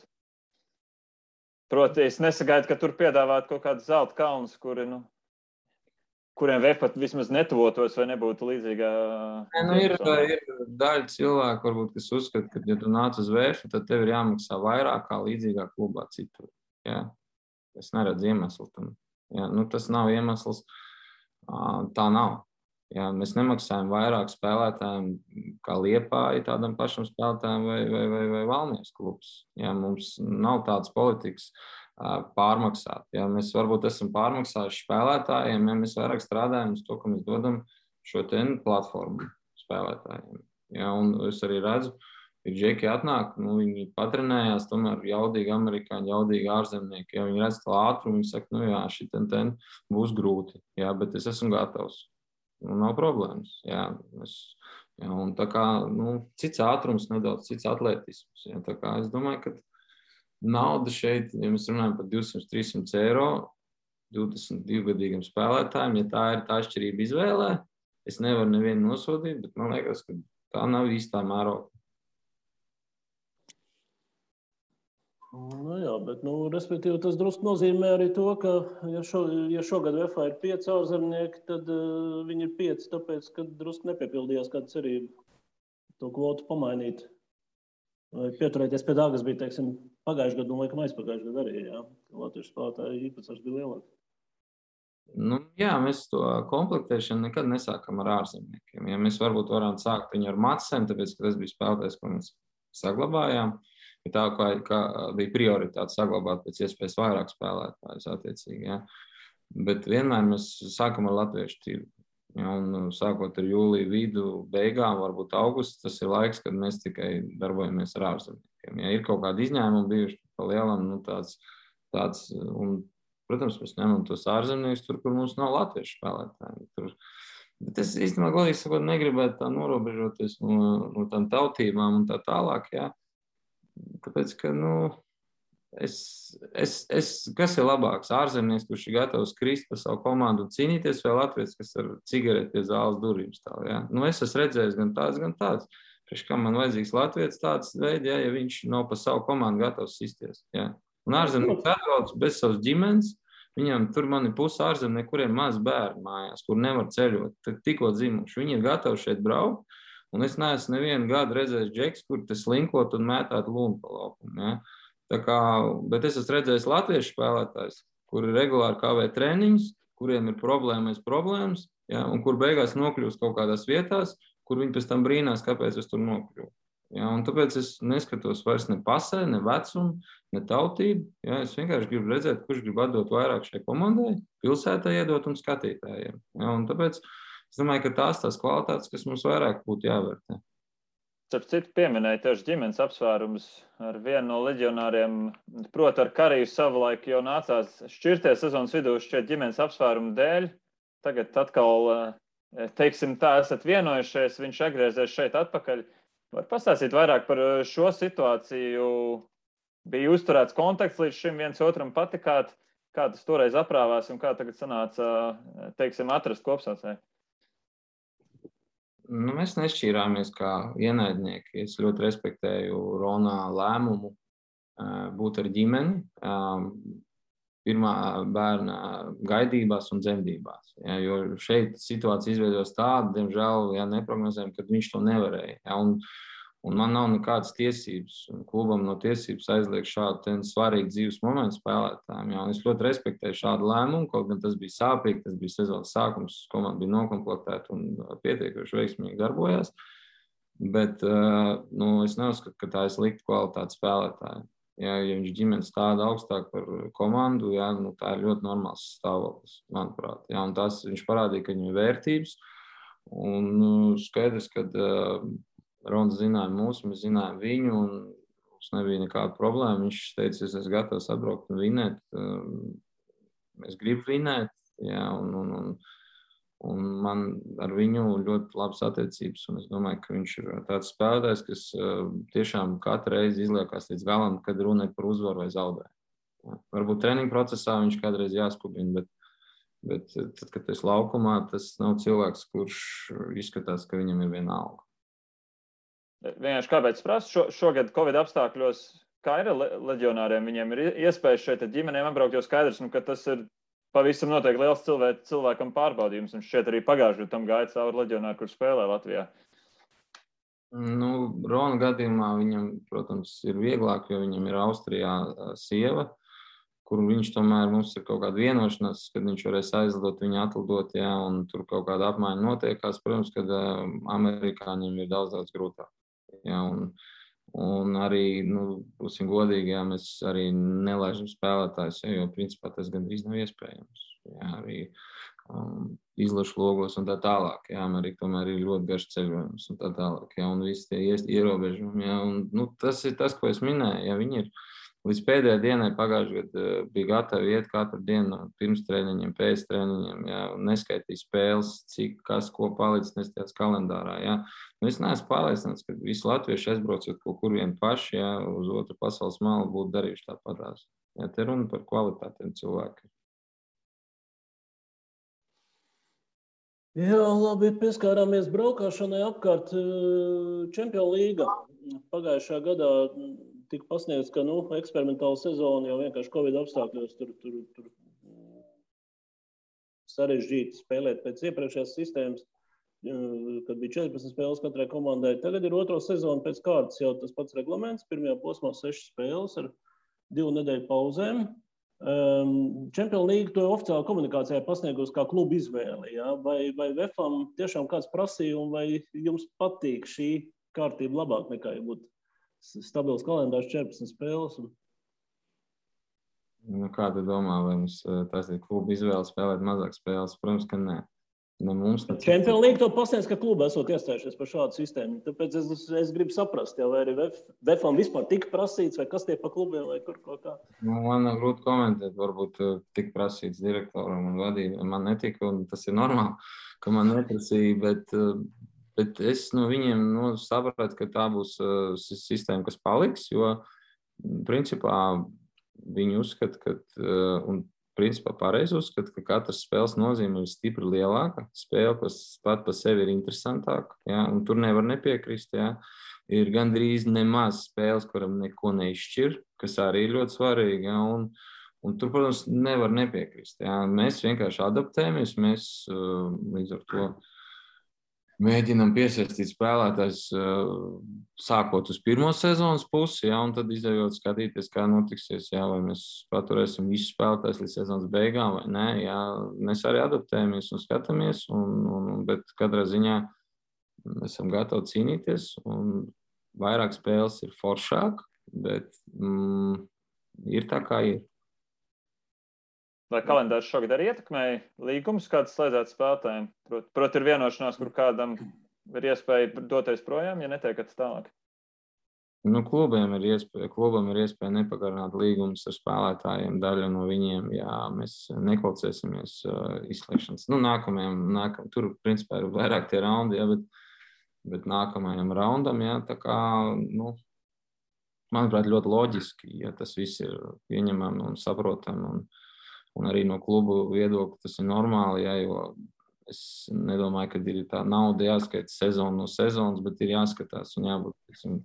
Proti, es nesagaidu, ka tur piedāvāt kaut kādus zelta kalnus, kuriem VF pat vismaz netuvotos vai nebūtu līdzīgā. Ir daļa cilvēku, varbūt, kas uzskata, ka, ja tu nāc uz VF, tad tev ir jāmaksā vairāk kā līdzīgā klubā citur. Ja? Es neredzu iemeslu tam. Ja? Tas nav iemesls. Tā nav. Ja, mēs nemaksājam vairāk spēlētājiem kā Liepāja tādam pašam spēlētājiem vai Valmieras klubs. Ja, mums nav tādas politikas pārmaksāt. Ja, mēs varbūt esam pārmaksājuši spēlētājiem, ja mēs vairāk strādājam uz to, ka mēs dodam šo platformu spēlētājiem. Ja, un es arī redzu, ka džeki atnāk, viņi patrenējās, tomēr jaudīgi amerikāņi, jaudīgi ārzemnieki. Ja, viņi redz to ātrumu, viņi saka, jā, šitien būs grūti, ja, bet es esmu gatavs. Nav problēmas. Jā, un tā kā cits ātrums, nedaudz cits atletisms. Jā, tā kā es domāju, ka nauda šeit, ja mēs runājam par 200-300 eiro 22-gadīgam spēlētājiem, ja tā ir tā atšķirība izvēlē, es nevaru nevienu nosodīt, bet man liekas, ka tā nav īstā mēroga. Jā, bet, respektīvi, tas drusku nozīmē arī to, ka, ja šogad VFA ir 5 ārzemnieki, tad viņi ir 5, tāpēc, ka drusku nepiepildījās kāda cerība to kvotu pamainīt. Vai pieturēties pie tā, kas bija, teiksim, pagājušajā gadu un laikam aizpagājušajā gadu arī, jā. Latviešu spēlētāju īpatsvars bija lielāks. Jā, mēs to komplektēšanu nekad nesākam ar ārzemniekiem. Ja mēs varbūt varam sākt viņu ar Matsem, tāpēc, ka tas bija spēlētājs, ko mēs saglabājām. Tā kā bija prioritāte saglabāt pēc iespējas vairāk spēlētājus attiecīgi. Ja. Bet vienmēr mēs sākam ar latviešu tirgu. Ja, un sākot ar jūliju vidu, beigām, varbūt augusts, tas ir laiks, kad mēs tikai darbojamies ar ārzemniekiem. Ja ir kaut kādi izņēmumi bijuši pa lielam, tāds, un, protams, mēs ņemam tos ārzemniekus tur, kur mums nav latviešu spēlētāji. Bet es īstenībā, godīgi sakot, negribētu tā norobežoties no tām tautībām un tā tālāk, ja. Tāpēc, ka, kas ir labāks? Ārzemnieks, kurš ir gatavs krist par savu komandu un cīnīties, vai latvieks, kas ar cigareti pie zāles durvīm stāv, ja? Es esmu redzējis gan tāds. Priekš kā man vajadzīgs latvieks tāds veids, ja viņš nav par savu komandu gatavs sisties, ja? Un ārzemnieks atbrauc bez savas ģimenes, viņam tur man ir puse ārzemnieki, kuriem maz bērni mājās, kur nevar ceļot, tikko dzimuši. Viņi ir gatavi šeit braukt. Un es neesmu nevienu gadu redzējis džeks, kur te slinkot un mētāt lūmu pa laukumu. Ja? Bet es esmu redzējis latviešu spēlētājs, kuri regulāri kavē treniņus, kuriem ir problēmas, ja? Un kur beigās nokļūst kaut kādās vietās, kur viņi pēc tam brīnās, kāpēc es tur nokļuvu. Ja? Un tāpēc es neskatos vairs ne pasē, ne vecumu, ne tautību. Ja? Es vienkārši gribu redzēt, kurš grib atdot vairāk šai komandai, pilsētai iedot un skatītājiem. Ja? Un tāpēc es domāju, ka tās kvalitātes, kas mums vairāk būtu jāvērtē. Starp citu, pieminēja tieši ģimenes apsvērums ar vienu no leģionāriem. Proti, ar Kariju savulaik jau nācās šķirties sezonas vidū šķiet ģimenes apsvērumu dēļ. Tagad atkal, teiksim tā, esat vienojušies, viņš atgriezies šeit atpakaļ. Var pastāstīt vairāk par šo situāciju? Bija uzturēts kontakts līdz šim viens otram patikāt, kā tas toreiz aprāvās un kā tagad sanāca, teiksim, atrast kopsaucēju? Mēs nešķīrāmies kā ienaidnieki. Es ļoti respektēju Ronā lēmumu būt ar ģimeni. pirmā bērna gaidībās un dzemdībās. Ja, jo šeit situācija izveidojas tāda, diemžēl, ja neprognozējam, kad viņš to nevarēja. Ja, un man nav nekādas tiesības, un klubam no tiesības aizliegt šādu svarīgu dzīves momentu spēlētājiem. Ja, un es ļoti respektēju šādu lēmumu, kaut gan tas bija sāpīgi, tas bija sezonas sākums, komanda bija nokomplektēta un pietiekuši veiksmīgi darbojās. Bet es neuzskatu, ka tā ir slikta kvalitāte spēlētāja. Ja viņš ģimenes stāda augstāk par komandu, ja, tā ir ļoti normāls stāvoklis, manuprāt. Ja, un tas viņš parādīja, ka viņam ir vērtības. Un skaidrs, ka Rons zināja mūsu, mēs zinājām viņu, un mums nebija nekāda problēma. Viņš teica, es esmu gatavs atbraukt un vinēt. Es gribu vinēt, ja, un man ar viņu ļoti labas attiecības, un es domāju, ka viņš ir tāds spēlētājs, kas tiešām katru reizi izliekās līdz galam, kad runa ir par uzvaru vai zaudējumu. Ja. Varbūt treniņu procesā viņš kādreiz jāskubina, bet tad, kad tas laukumā, tas nav cilvēks, kurš izskatās, ka viņam ir viena alga. Vienkārši kāpēc prasu, šogad Covid apstākļos, kā ir leģionāriem, viņiem ir iespējas šeit ģimenēm apbraukt, jo skaidrs, ka tas ir pavisam noteikti liels cilvēkam pārbaudījums, un šķiet arī pagājušajā tam gāja cauri leģionāri, kur spēlē Latvijā. Rona gadījumā viņam, protams, ir vieglāk, jo viņam ir Austrijā sieva, kur viņš tomēr mums ir kaut kāda vienošanās, kad viņš varēs aizlidot, viņu atlidot, ja, un tur kaut kāda apmaiņa notiekās. Protams, kad amerikāņiem ir daudz grūtāk. Ja, un arī, būsim godīgi, ja, mēs arī nelaižam spēlētājus, ja, jo principā tas gandrīz nav iespējams. Ja, arī izlašu logos un tā tālāk. Ja, Amerika tomēr ir ļoti garš ceļojums un tā tālāk. Ja, un visi tie ierobežumi. Ja, un, tas ir tas, ko es minēju. Ja, viņi ir līdz pēdējai dienai pagājušajā gadā bija gatavi iet katru dienu pirms treniņiem, pēc treniņiem, ja, un neskaitīja spēles, cik, kas, ko palicis nestājās kalendārā. Ja. Es neesmu pārliecināts, ka visi latvieši aizbraucot kaut kur vien paši, ja, uz otru pasaules malu būtu darījuši tāpatās. Ja, te runa par kvalitātiem cilvēkiem. Jā, labi, pieskārāmies braukāšanai apkārt Čempionu līga. Pagājušā gadā tika pasniegts, ka eksperimentāla sezona jau vienkārši Covid apstākļos tur sarežģīti spēlēt pēc iepriekšējās sistēmas, kad bija 14 spēles katrai komandai. Tagad ir otro sezonu pēc kārtas jau tas pats reglaments. Pirmajā posmā 6 spēles ar 2 nedēļu pauzēm. Čempionu līga to oficiāli komunikācijā pasniegusi kā klubu izvēli. Ja? Vai VEFam tiešām kāds prasīja, un vai jums patīk šī kārtība labāk nekā, ja būtu stabils kalendārs 14 spēles? Kā tu domā, vai mums tas ir kluba izvēle spēlēt mazāk spēles? Protams, ka nē. Čempionu līga to pasniedz, ka kluba esot iestājušies par šādu sistēmu. Tāpēc es gribu saprast, ja, vai arī VEFam vispār tika prasīts, vai kas tie pa klubiem, vai kur kaut kā. Man nav grūti komentēt, varbūt tika prasīts direktoram un vadībām. Man netika, un tas ir normāli, ka man neprasīja, bet es no viņiem sapratu, ka tā būs sistēma, kas paliks, jo principā viņi uzskata, ka, un principā pareizi uzskata, ka katras spēles nozīme ir stipri lielāka, spēle pat par sevi ir interesantāka, ja, un tur nevar nepiekrist, ja. Ir gandrīz nemaz spēles, kuram neko neizšķir, kas arī ir ļoti svarīgi, ja, un tur, protams, nevar nepiekrist, ja. Mēs vienkārši adaptējamies, mēs līdz ar to mēģinam piesaistīt spēlētājs sākot uz pirmo sezonas pusi, ja, un tad izējot skatīties, kā notiksies, ja, vai mēs paturēsim visus spēlētājus līdz sezonas beigām vai nē. Ja. Mēs arī adaptējamies un skatāmies, bet katrā ziņā esam gatavi cīnīties, un vairāk spēles ir foršāk, bet ir tā, kā ir. Vai kalendārs šogad arī ietekmēja līgumus, kāds slēdzēt spēlētājiem? Proti, ir vienošanās, kur kādam ir iespēja doties projām, ja netiekat tālāk? Klubam ir iespēja nepagarināt līgumus ar spēlētājiem, daļa no viņiem, ja mēs nekvalificēsimies izslēgšanas. Tur, principā, ir vairāk tie raundi, ja, bet nākamajam raundam, ja, tā kā, manuprāt, ļoti loģiski, ja tas viss ir pieņemami un saprotami, un arī no klubu viedokļa tas ir normāli, ja, jo es nedomāju, ka ir tā nauda jāskaita sezonu no sezonas, bet ir jāskatās un jābūt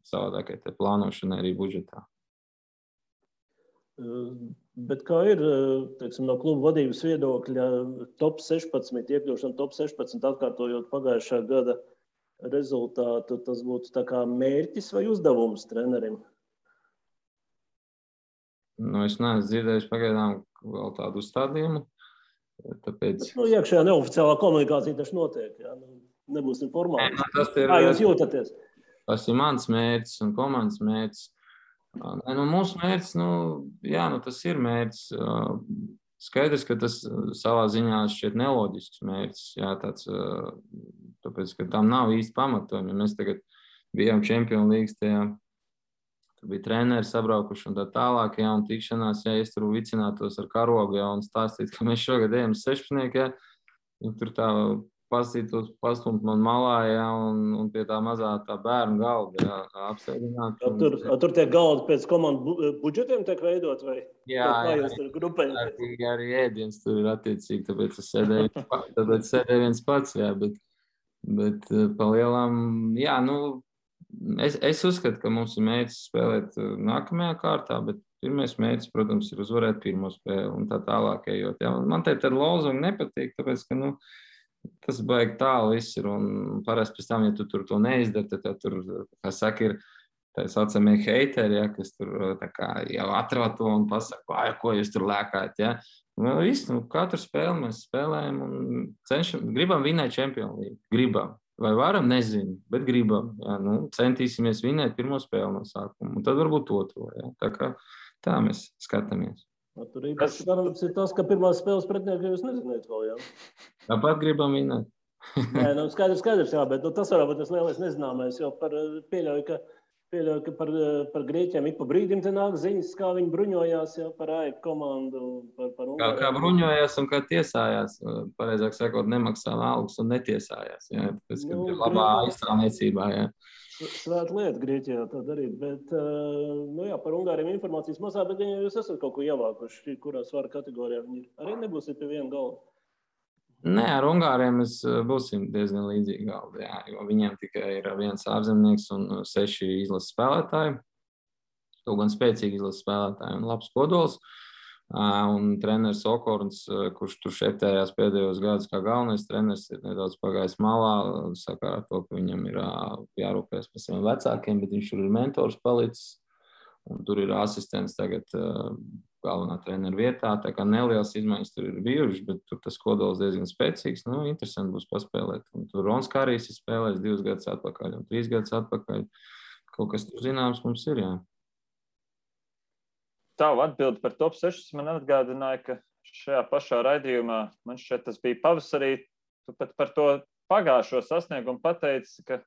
savādākai te plānošanai arī budžetā. Bet kā ir, teiksim, no kluba vadības viedokļa top 16, iekļūšana top 16, atkārtojot pagājušā gada rezultātu, tas būtu tā kā mērķis vai uzdevums trenerim? Es neesmu dzirdējis pagaidām vēl tādu uzstādījumu. Tāpēc... Iekšējā neoficiālā komunikācija taču notiek. Jā? Nebūsim formāli. Kā jūs jūtaties? Tas ir mans mērķis un komandas mērķis. Mūsu mērķis, tas ir mērķis. Skaidrs, ka tas savā ziņā šķiet neloģisks mērķis. Jā, tāpēc, ka tam nav īsti pamatojumi. Ja mēs tagad bijām Champions League tajā, tur bija treneri sabraukuši un tā tālāk, jā, un tikšanās, ja es tur vicinātos ar karogu, jā, un stāstīt, ka mēs šogad ejam 16, jā, un tur tā pastumt man malā, jā, un pie tā mazā tā bērnu galda, jā, apsēdināt. Tur tie galdi pēc komandu budžetiem tiek veidot, vai? Jā, arī ēdiens tur ir attiecīgi, tāpēc es sēdēju viens pats, jā, bet pa lielām, jā, es uzskatu, ka mums ir mērķis spēlēt nākamajā kārtā, bet pirmais mērķis, protams, ir uzvarēt pirmo spēli un tā tālāk ejot. Jā. Man te tad lozungi nepatīk, tāpēc, ka, tas baigi tālu viss ir, un parasti pēc tam, ja tu tur to neizdari, tad tur, kā saka, ir tā saucamie heiteri, ja, kas tur tā kā jau atrod to un pasaka, ko jūs tur lēkājat, ja. Katru spēli mēs spēlējam un gribam vinēt Champions League, gribam. Vai varam, nezinu, bet gribam, ja, centīsimies vinēt pirmo spēli no sākuma, un tad varbūt otro, ja. Tā kā tā mēs skatāmies. Tur īpaši darams ir tas, ka pirmās spēles pretinieki jūs neziniet vēl, jā? Tāpat gribam vinēt. Nē, skaidrs, jā, bet tas varbūt tas lielais nezināmais, jo pieļauju, ka par Grieķiem ik pa brīdim te nāk ziņas, kā viņi bruņojās, jā, par AEK komandu, par Ungāriju. Kā bruņojās un kā tiesājās, pareizāk sakot, nemaksā algas un netiesājās, jā, tāpēc, ka ir labā aizstāvniecībā, jā. Svēta lieta Grieķijā tā darīt, bet, par Ungāriem informācijas mazā, bet ja jūs esat kaut ko ievākuši, kurā svara kategorijā viņi ir, arī nebūsiet pie viena galda? Nē, ar Ungāriem mēs būsim diezgan līdzīgi galdi, jā, jo viņiem tikai ir viens ārzemnieks un 6 izlases spēlētāji, kaut gan spēcīgi izlases spēlētāji un labs kodols. Un treneris Okorns, kurš tur šeptējās pēdējos gadus kā galvenais treneris, ir nedaudz pagājis malā, sakarā to, ka viņam ir jārūpēs par saviem vecākiem, bet viņš tur ir mentors palicis, un tur ir asistents tagad galvenā trenera vietā, tā kā nelielas izmaiņas tur ir bijušas, bet tur tas kodols diezgan spēcīgs, interesanti būs paspēlēt. Un tur Rons Kārijs ir spēlējis 2 gadus atpakaļ un 3 gadus atpakaļ. Kaut kas tur zināms mums ir, jā. Tavu atbildi par top 6 man atgādināja, ka šajā pašā raidījumā, man šķiet, tas bija pavasarī, tu pat par to pagājušo sasniegumu pateici, ka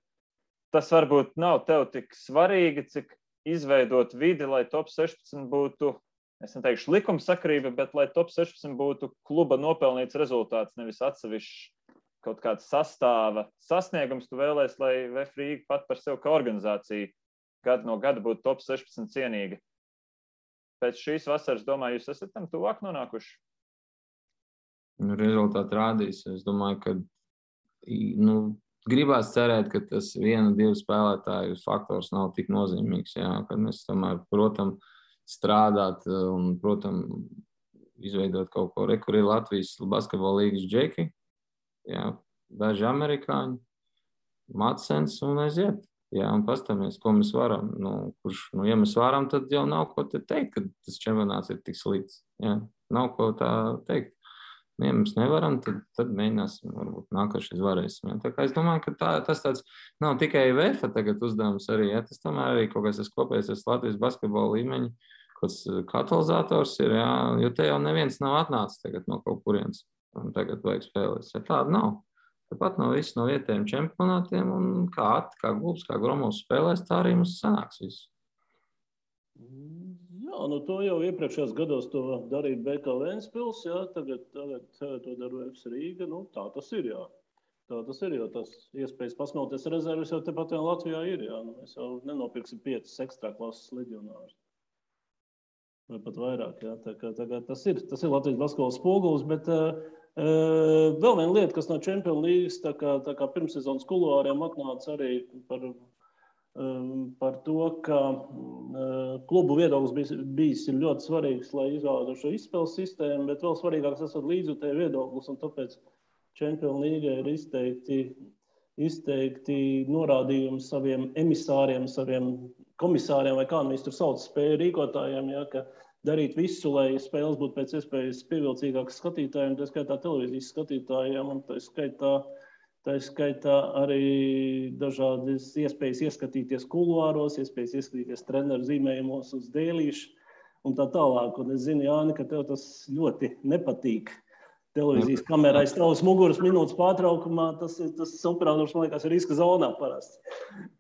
tas varbūt nav tev tik svarīgi, cik izveidot vidi, lai top 16 būtu, es neteikšu likumsakarība, bet lai top 16 būtu kluba nopelnīts rezultāts, nevis atsevišķi kaut kāds sastāva sasniegums. Tu vēlēs, lai VF Rīga pat par sevi kā organizācija gadu no gada būtu top 16 cienīga. Pēc šīs vasaras, domāju, jūs esat tam tuvāk nonākuši? Rezultāti rādīs. Es domāju, ka gribās cerēt, ka tas 1-2 spēlētāju faktors nav tik nozīmīgs. Jā, kad mēs tomēr, protams, strādāt un, protams, izveidot kaut ko. Kur ir Latvijas basketbola līgas džeki, jā, daži amerikāņi, Matsens un aiziet. Jā, un pastāmies, ko mēs varam. Ja mēs varam, tad jau nav ko te teikt, ka tas čempionāts ir tik slikts. Jā, nav ko tā teikt. Ja mēs nevaram, tad mēģināsim, varbūt nākošais varēsim. Jā. Tā kā es domāju, ka tas tāds nav tikai VF tagad uzdevums arī. Jā. Tas tomēr arī kaut kas tas kopējais Latvijas basketbola līmeņa, kāds katalizators ir, jā, jo te jau neviens nav atnācis tagad no kaut kurienes. Un tagad vajag spēlēt. Ja tāda nav. Tāpat no visu no vietējiem čempionātiem un kā Glubs, kā Gromovs spēlēs, tā arī mums sanāks visu. Jā, to jau iepriekšējos gados to darīja BK Ventspils, jā, tagad to dara VF Rīga, tā tas ir, jā. Tā tas ir, jo tas iespējas pasmelties rezervis jau tepat jau Latvijā ir, jā. Mēs jau nenopirksim 5 ekstrā klases leģionārus. Vai pat vairāk, jā. Tā kā tas ir Latvijas basketbola spogulis, bet vēl viena lieta, kas no Champions League, tā kā pirmssezonas kuluāriem atnāca arī par par to, ka klubu viedoklis bijis ir ļoti svarīgs, lai izvēlētu šo izspēles sistēmu, bet vēl svarīgāks esot līdzjutēju viedoklis, un tāpēc Champions League ir izteikti norādījumi saviem emisāriem, saviem komisāriem, vai kā mēs tur sauc, spēju rīkotājiem, ja, ka darīt visu, lai spēles būtu pēc iespējas pievilcīgākas skatītājiem, tā skaitā televīzijas skatītājiem, un tā skaitā arī dažādas iespējas ieskatīties kuluāros, iespējas ieskatīties treneru zīmējumos uz dēlīšu un tā tālāk. Un es zinu, Jāni, ka tev tas ļoti nepatīk. Televīzijas kamerā aiz tavas muguras minūtes pārtraukumā, tas operators, man liekas, ir riska zonā parasti.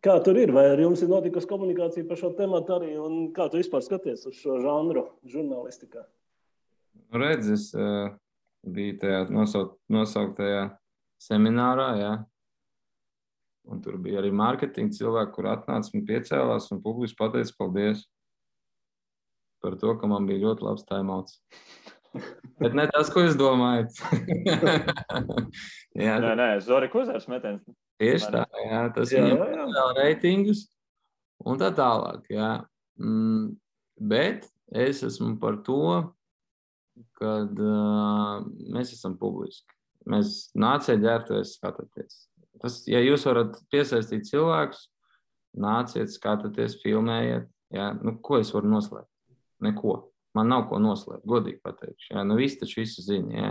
Kā tur ir? Vai ar jums ir notikusi komunikācija par šo tematu arī, un kā tu vispār skaties uz šo žanru žurnālistikā? Redz, es biju tajā nosauktajā seminārā, jā. Un tur bija arī mārketinga cilvēki, kur atnāca un piecēlās un publiski pateica paldies par to, ka man bija ļoti labs timeouts. Bet ne tas, ko jūs domājat. Nē, Zorika uzvars metiens. Tieši tā, jā. Tas viņam vēl reitingus un tā tālāk, jā. Bet es esmu par to, kad mēs esam publiski. Mēs nāciet ģērbties, skatāties. Ja jūs varat piesaistīt cilvēkus, nāciet, skatāties, filmējiet. Jā. Nu, ko es varu noslēpt? Neko. Man nav ko noslēpt, godīgi pateikšu. Jā. Nu, visi taču visu zina. Jā.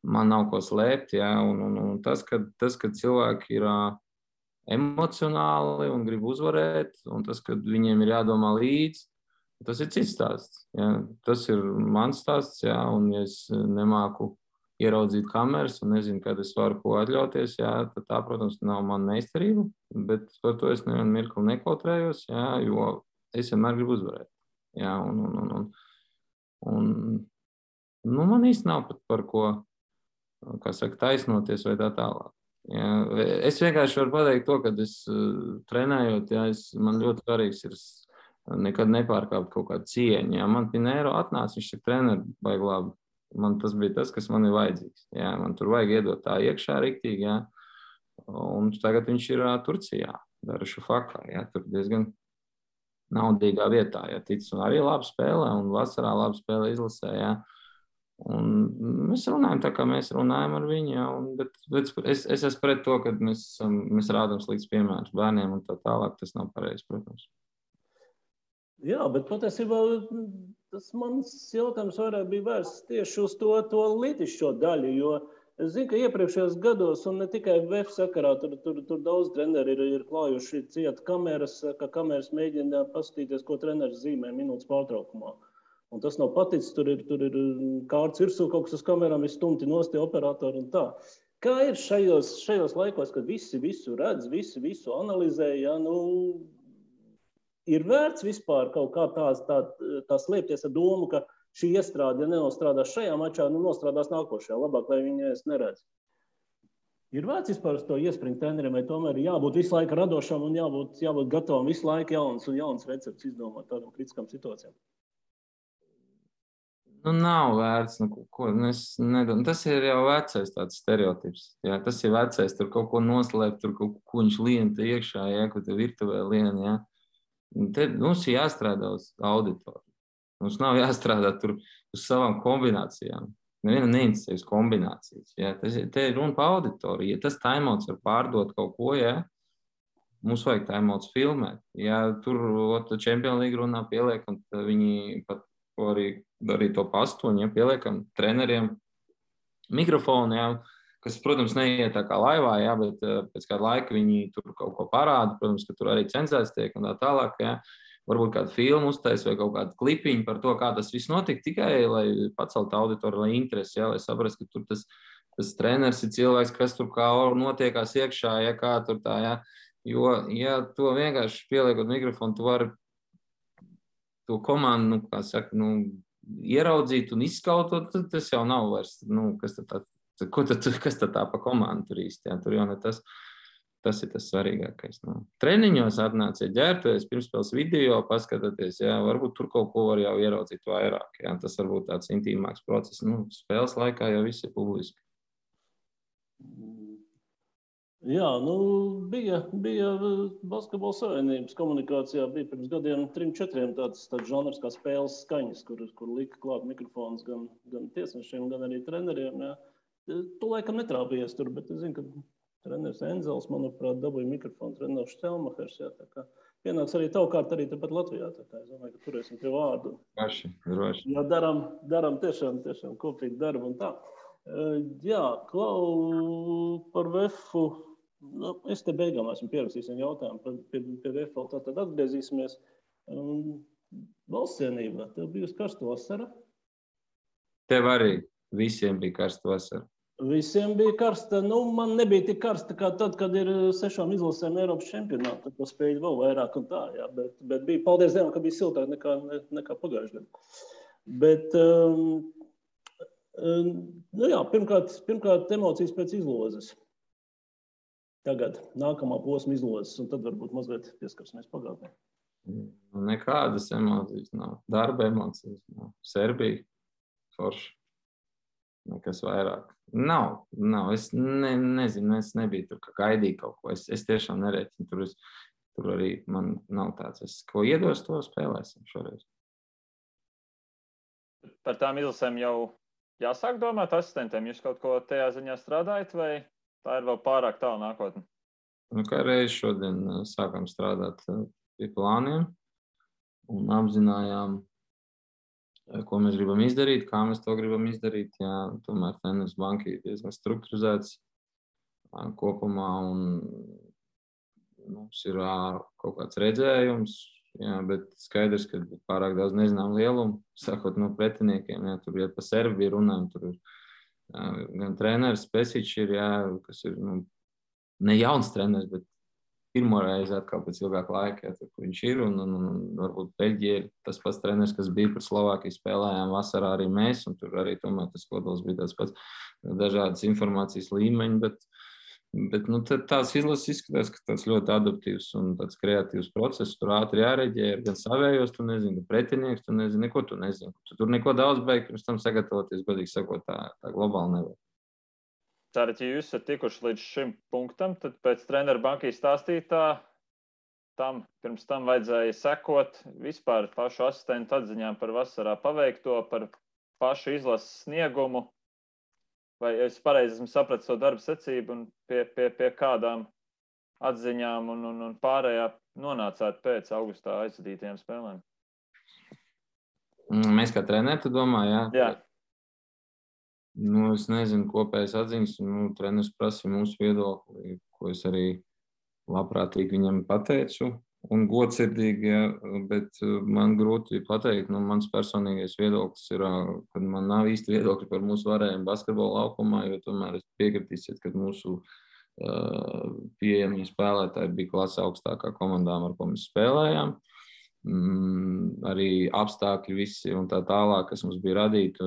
Man nav ko slēpt. Jā. Un tas, ka cilvēki ir emocionāli un grib uzvarēt, un tas, ka viņiem ir jādomā līdzi, tas ir cits stāsts. Jā. Tas ir mans stāsts, jā, un ja es nemāku ieraudzīt kameras un nezinu, kad es varu ko atļauties, jā, tad tā, protams, nav mana meistarība, bet par to es nevienu mirkli nekautrējos, jā, jo es vienmēr gribu uzvarēt. Jā, un man īsti nav pat par ko, kā saka, taisnoties vai tā tālāk. Jā. Es vienkārši varu pateikt to, kad es trenējot, jā, man ļoti svarīgs ir nekad nepārkāpt kaut kādu cieņu. Jā. Man Pinēro atnāca, viņš saka, treneri, baigi labi. Man tas bija tas, kas man ir vajadzīgs. Jā. Man tur vajag iedot tā iekšā riktīgi, jā. Un tagad viņš ir Turcijā, Darüşşafakā, jā. Tur diezgan naudīgā vietā, ja tic, un arī labi spēlē, un vasarā labi spēlē izlasē, jā. Un mēs runājam tā, kā mēs runājam ar viņu, jā, bet es esmu pret to, ka mēs rādām slikts piemērs bērniem un tā tālāk, tas nav pareizi, protams. Jā, bet patiesībā tas mans jautājums vairāk bija vērsts tieši uz to lītišķo daļu, jo es zinu, ka iepriekšējos gados, un ne tikai VF sakarā, tur daudz treneri ir klājuši ciet kameras, ka kameras mēģina paskatīties, ko treneris zīmē minūtes pārtraukumā. Un tas nav paticis, tur ir kārts virsū kaut kas uz kamerām, ir stumti nosti operatori un tā. Kā ir šajos laikos, kad visi visu redz, visi visu analizē, ja, nu, ir vērts vispār kaut kā tā slēpties ar domu, ka šī iestrāde, ja nenostrādās šajā mačā, nu nostrādās nākošajā, labāk, lai viņi es neredz. Ir vērts vispār uz to iespringt treneriem, vai tomēr jābūt visu laiku radošam un jābūt gatavam visu laiku jauns recepts izdomāt tādam kritiskam situācijām? Nu, nav vērts, tas ir jau vecais tāds stereotips. Jā, tas ir vecais, tur kaut ko noslēpt, tur kaut ko viņš lien te iekšā, jā, ko te virtuvē lien, jā. Te mums ir jāstrādā uz auditoru. Mums nav jāstrādā tur uz savām kombinācijām. Nevienam neinteresē uz kombinācijas. Jā. Te ir runa par auditoriju. Ja tas timeouts var pārdot kaut ko, jā, mums vajag timeouts filmēt. Ja tur Champions League runā pieliekam, tad viņi pat arī to pastoņu, ja, pieliekam treneriem mikrofonu, jā, kas, protams, neiet tā kā laivā, jā, bet pēc kāda laika viņi tur kaut ko parāda, protams, ka tur arī cenzēts tiek un tā tālāk, jā. Varbūt kādu filmu uztais vai kaut kādu klipiņu par to, kā tas viss notika, tikai, lai pacelt auditoru, lai interesi, jā, lai saprast, ka tur tas treneris ir cilvēks, kas tur kā notiekās iekšā, ja kā tur tā, jā. Jo, ja to vienkārši pieliekot mikrofonu, tu vari to komandu, kā saka, ieraudzīt un izskautot, tas jau nav vairs, kas tad tā pa komandu tur īsti, jā, tur jau ne tas ir tas svarīgākais. Treniņos atnāciet ģērbties, pirmspēles video, paskatieties, jā, varbūt tur kaut ko var jau ieraudzīt vairāk, jā, tas varbūt tāds intīmāks process, spēles laikā jau viss ir publiski. Jā, bija Basketbola savienības komunikācijā, bija pirms gadiem 3-4 tāds žanrs kā spēles skaņas, kur lika klāt mikrofons gan tiesnešiem, gan arī treneriem. Jā. Tu laikam netrāpījies tur, bet es zinu, ka treneris Enzels, manuprāt, dabūja mikrofonu, treneris Štelmachers. Jā, tā kā pienāks arī tavu kārtu arī tepat Latvijā. Tā kā es domāju, ka turēsim pie vārdu. Droši. Jā, daram tiešām kopīgi darbu un tā. Jā, Klau, par VF-u. Es te beigām esmu pierakstījis jautājumu pie VF, tad atgriezīsimies. Valsts cienībā, tev bijusi karsta vasara? Tev arī visiem bija karsta vasara. Visiem bija karsta. Man nebija tik karsta kā tad, kad ir 6 izlasēm Eiropas čempionātā. Tad spēļu vēl vairāk un tā, jā. Bet bija, paldies Dievam, ka bija siltāk nekā pagājušajā gadā. Bet, jā, pirmkārt emocijas pēc izlozes. Tagad nākamā posma izlozes, un tad varbūt mazliet pieskarsimies pagātnē. Nekādas emocijas nav. Darba emocijas nav. Serbija, forši. Nekas vairāk. Nav. Es nezinu, es nebiju tur, ka gaidīju kaut ko. Es tiešām nerēķinu. Tur arī man nav tāds. Ko iedos, to spēlēsim šoreiz. Par tām izlasēm jau jāsāk domāt asistentiem. Jūs kaut ko tajā ziņā strādājat, vai tā ir vēl pārāk tālu nākotne? Kā reiz šodien sākam strādāt pie plāniem un apzinājām, ko mēs gribam izdarīt, kā mēs to gribam izdarīt. Jā, tomēr treneris banka ir diezgan strukturizēts kopumā un mums ir kaut kāds redzējums, jā, bet skaidrs, ka pārāk daudz nezinām lielumu, sakot no pretiniekiem, jā, tur ir pa Serbiju runājam, tur ir gan treneris Pesičs ir, jā, kas ir ne jauns treneris, bet pirmo reizi atkal pēc ilgāka laika, jā, tur, kur viņš ir, un varbūt Beļģija ir tas pats treneris, kas bija par Slovākiju spēlējām vasarā arī mēs, un tur arī tomēr tas kodols bija tāds pats dažādas informācijas līmeņi, bet tās izlases izskatās, ka tāds ļoti adaptīvs un tāds kreatīvs process, tur ātri jāreģē, gan savējos, tu nezini, pretinieks, tu nezini, neko tu nezini. Tu tur neko daudz beig, pirms tam sagatavoties, godīgi sakot, tā globāli nevar. Tātad, ja jūs esat tikuši līdz šim punktam, tad pēc treneru bankīs stāstītā pirms tam vajadzēja sekot vispār pašu asistentu atziņām par vasarā paveikto, par pašu izlases sniegumu. Vai es pareizi esmu sapratis to darbu secību un pie kādām atziņām un pārējā nonācāt pēc augustā aizvadītajām spēlēm? Mēs kā treneri, tu domā, jā? Jā. Es nezinu, kopējas atziņas, treneris prasīja mūsu viedokli, ko es arī labprātīgi viņam pateicu, un godsirdīgi, jā, bet man grūti pateikt, mans personīgais viedoklis ir, ka man nav īsti viedokļi par mūsu varējumu basketbola laukumā, jo tomēr es piekritīsiet, ka mūsu pieejamie spēlētāji bija klase augstākā komandām, ar ko mēs spēlējām. Arī apstākļi visi un tā tālāk, kas mums bija radīti,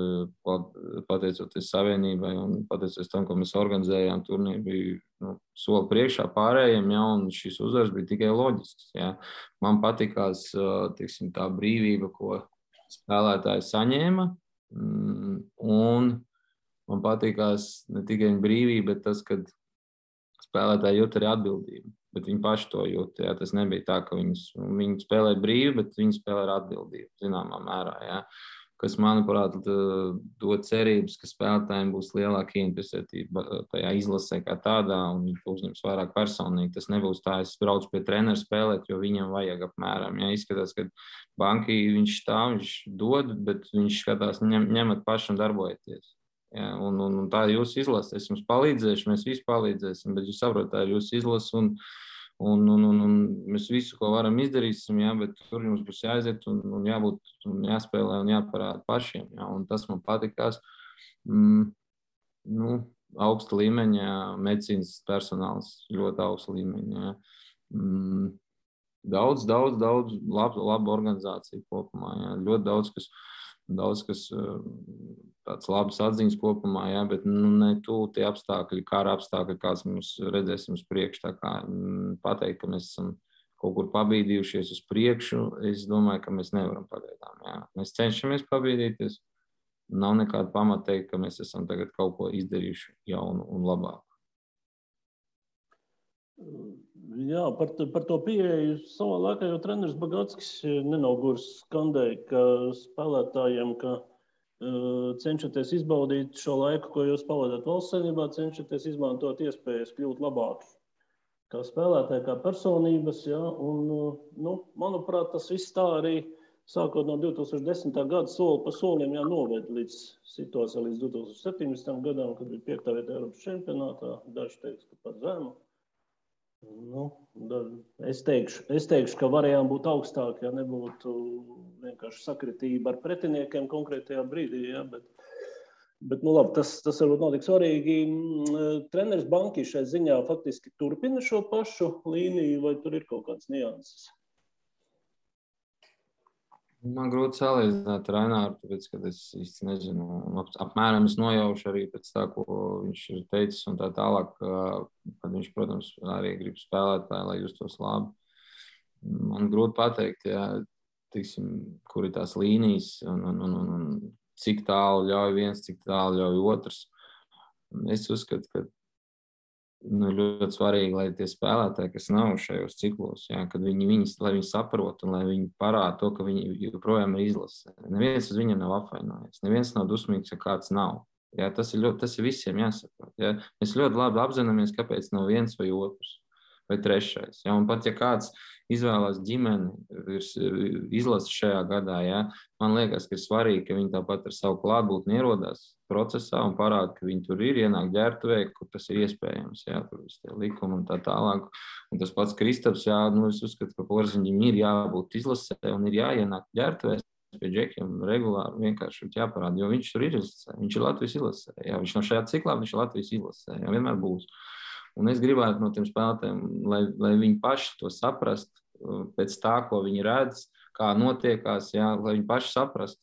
pateicoties savienībai un pateicoties tam, ko mēs organizējām, turnīri bija soli priekšā pārējiem, jā, un šis uzvars bija tikai loģisks. Jā. Man patikās, teiksim, tā brīvība, ko spēlētāji saņēma, un man patikās ne tikai brīvība, bet tas, kad spēlētāji jūt arī atbildību. Bet viņi paši to jūt. Jā. Tas nebija tā, ka viņi spēlē brīvi, bet viņi spēlē ar atbildību, zināmā mērā. Jā. Kas, manuprāt, dod cerības, ka spēlētājiem būs lielāka interesētība tajā izlasē kā tādā, un viņi uzņems vairāk personīgi. Tas nebūs tā, es braucu pie treneru spēlēt, jo viņam vajag apmēram. Jā. Izskatās, ka bankī viņš dod, bet viņš skatās, ņemat paši un darbojieties. Ja, un tā ir jūsu izlase. Es jums palīdzēšu, mēs visi palīdzēsim, bet jūs saprotat, tā ir jūsu izlase un mēs visu, ko varam izdarīsim, ja, bet tur jums būs jāaiziet un jābūt un jāspēlē un jāparāda pašiem. Ja, un tas man patikās. Augsta līmeņa medicīnas personāls, ļoti augsta līmeņa. Ja. Daudz laba organizācija kopumā. Ja. Ļoti daudz, kas tāds labs atziņas kopumā, jā, bet ne tie apstākļi, kara apstākļi, kāds mums redzēsim uz priekšu. Tā kā pateikt, ka mēs esam kaut kur pabīdījušies uz priekšu, es domāju, ka mēs nevaram pagaidām. Jā. Mēs cenšamies pabīdīties. Nav nekāda pamata teikt, ka mēs esam tagad kaut ko izdarījuši jaunu un labāku. Jā, par to pieeju savā laikā, jo treneris Bagatskis nenogurs skandēja, ka spēlētājiem, ka cenšaties izbaudīt šo laiku, ko jūs pavadāt valsts saimnībā, cenšaties izmantot iespējas kļūt labāki kā spēlētāji, kā personības. Ja? Un, manuprāt, tas viss tā arī sākot no 2010. gada soli pa solim noved līdz situācijai līdz 2017. gadam, kad bija 5. vieta Eiropas čempionātā. Daži teiks, ka par zemu. Es teikšu, ka varējām būt augstāki, ja nebūtu vienkārši sakritība ar pretiniekiem konkrētajā brīdī. Ja? Bet labi, tas varbūt nav tik svarīgi. Treneris Banki šai ziņā faktiski turpina šo pašu līniju, vai tur ir kaut kāds nianses? Man grūti salīdzināt ar Aināru, tāpēc, ka es īsti nezinu. Apmēram es nojaušu arī pēc tā, ko viņš ir teicis un tā tālāk, kad viņš, protams, arī grib spēlēt, lai justos labi. Man grūti pateikt, ja, tiksim, kur ir tās līnijas un cik tālu ļauj viens, cik tālu ļauj otrs. Es uzskatu, ka ļoti svarīgi, lai tie spēlētāji, kas nav šajos ciklos, ja, kad lai viņi saprot un lai viņi parāda to, ka viņi joprojām ir izlase. Neviens uz viņiem nav apvainojies, neviens nav dusmīgs, ja kāds nav. Ja, tas ir visiem jāsaprot. Ja. Mēs ļoti labi apzināmies, kāpēc nav viens vai otrs vai trešais. Ja. Un pat, ja kāds izvēlās ģimeni, izlasi šajā gadā, ja, man liekas, ka ir svarīgi, ka viņi tāpat ar savu klātbūtni ierodās procesā un parāda, ka viņi tur ir, ienāk ģērbtuvē, kur tas ir iespējams, jā, tur visi tie likumi un tā tālāk. Un tas pats Kristaps, jā, es uzskatu, ka Porziņģim ir jābūt izlasē un ir jāienāk ģērbtuvēs pie džekiem regulāri, vienkārši jāparāda, jo viņš tur ir izlasē, viņš ir Latvijas izlasē, jā, viņš no šajā ciklā, viņš ir Latvijas izlasē, jā, vienmēr būs. Un es gribētu no tiem spēlētājiem, lai viņi paši to saprast pēc tā, ko viņi redz, kā notiekās, jā, lai viņi paši saprast.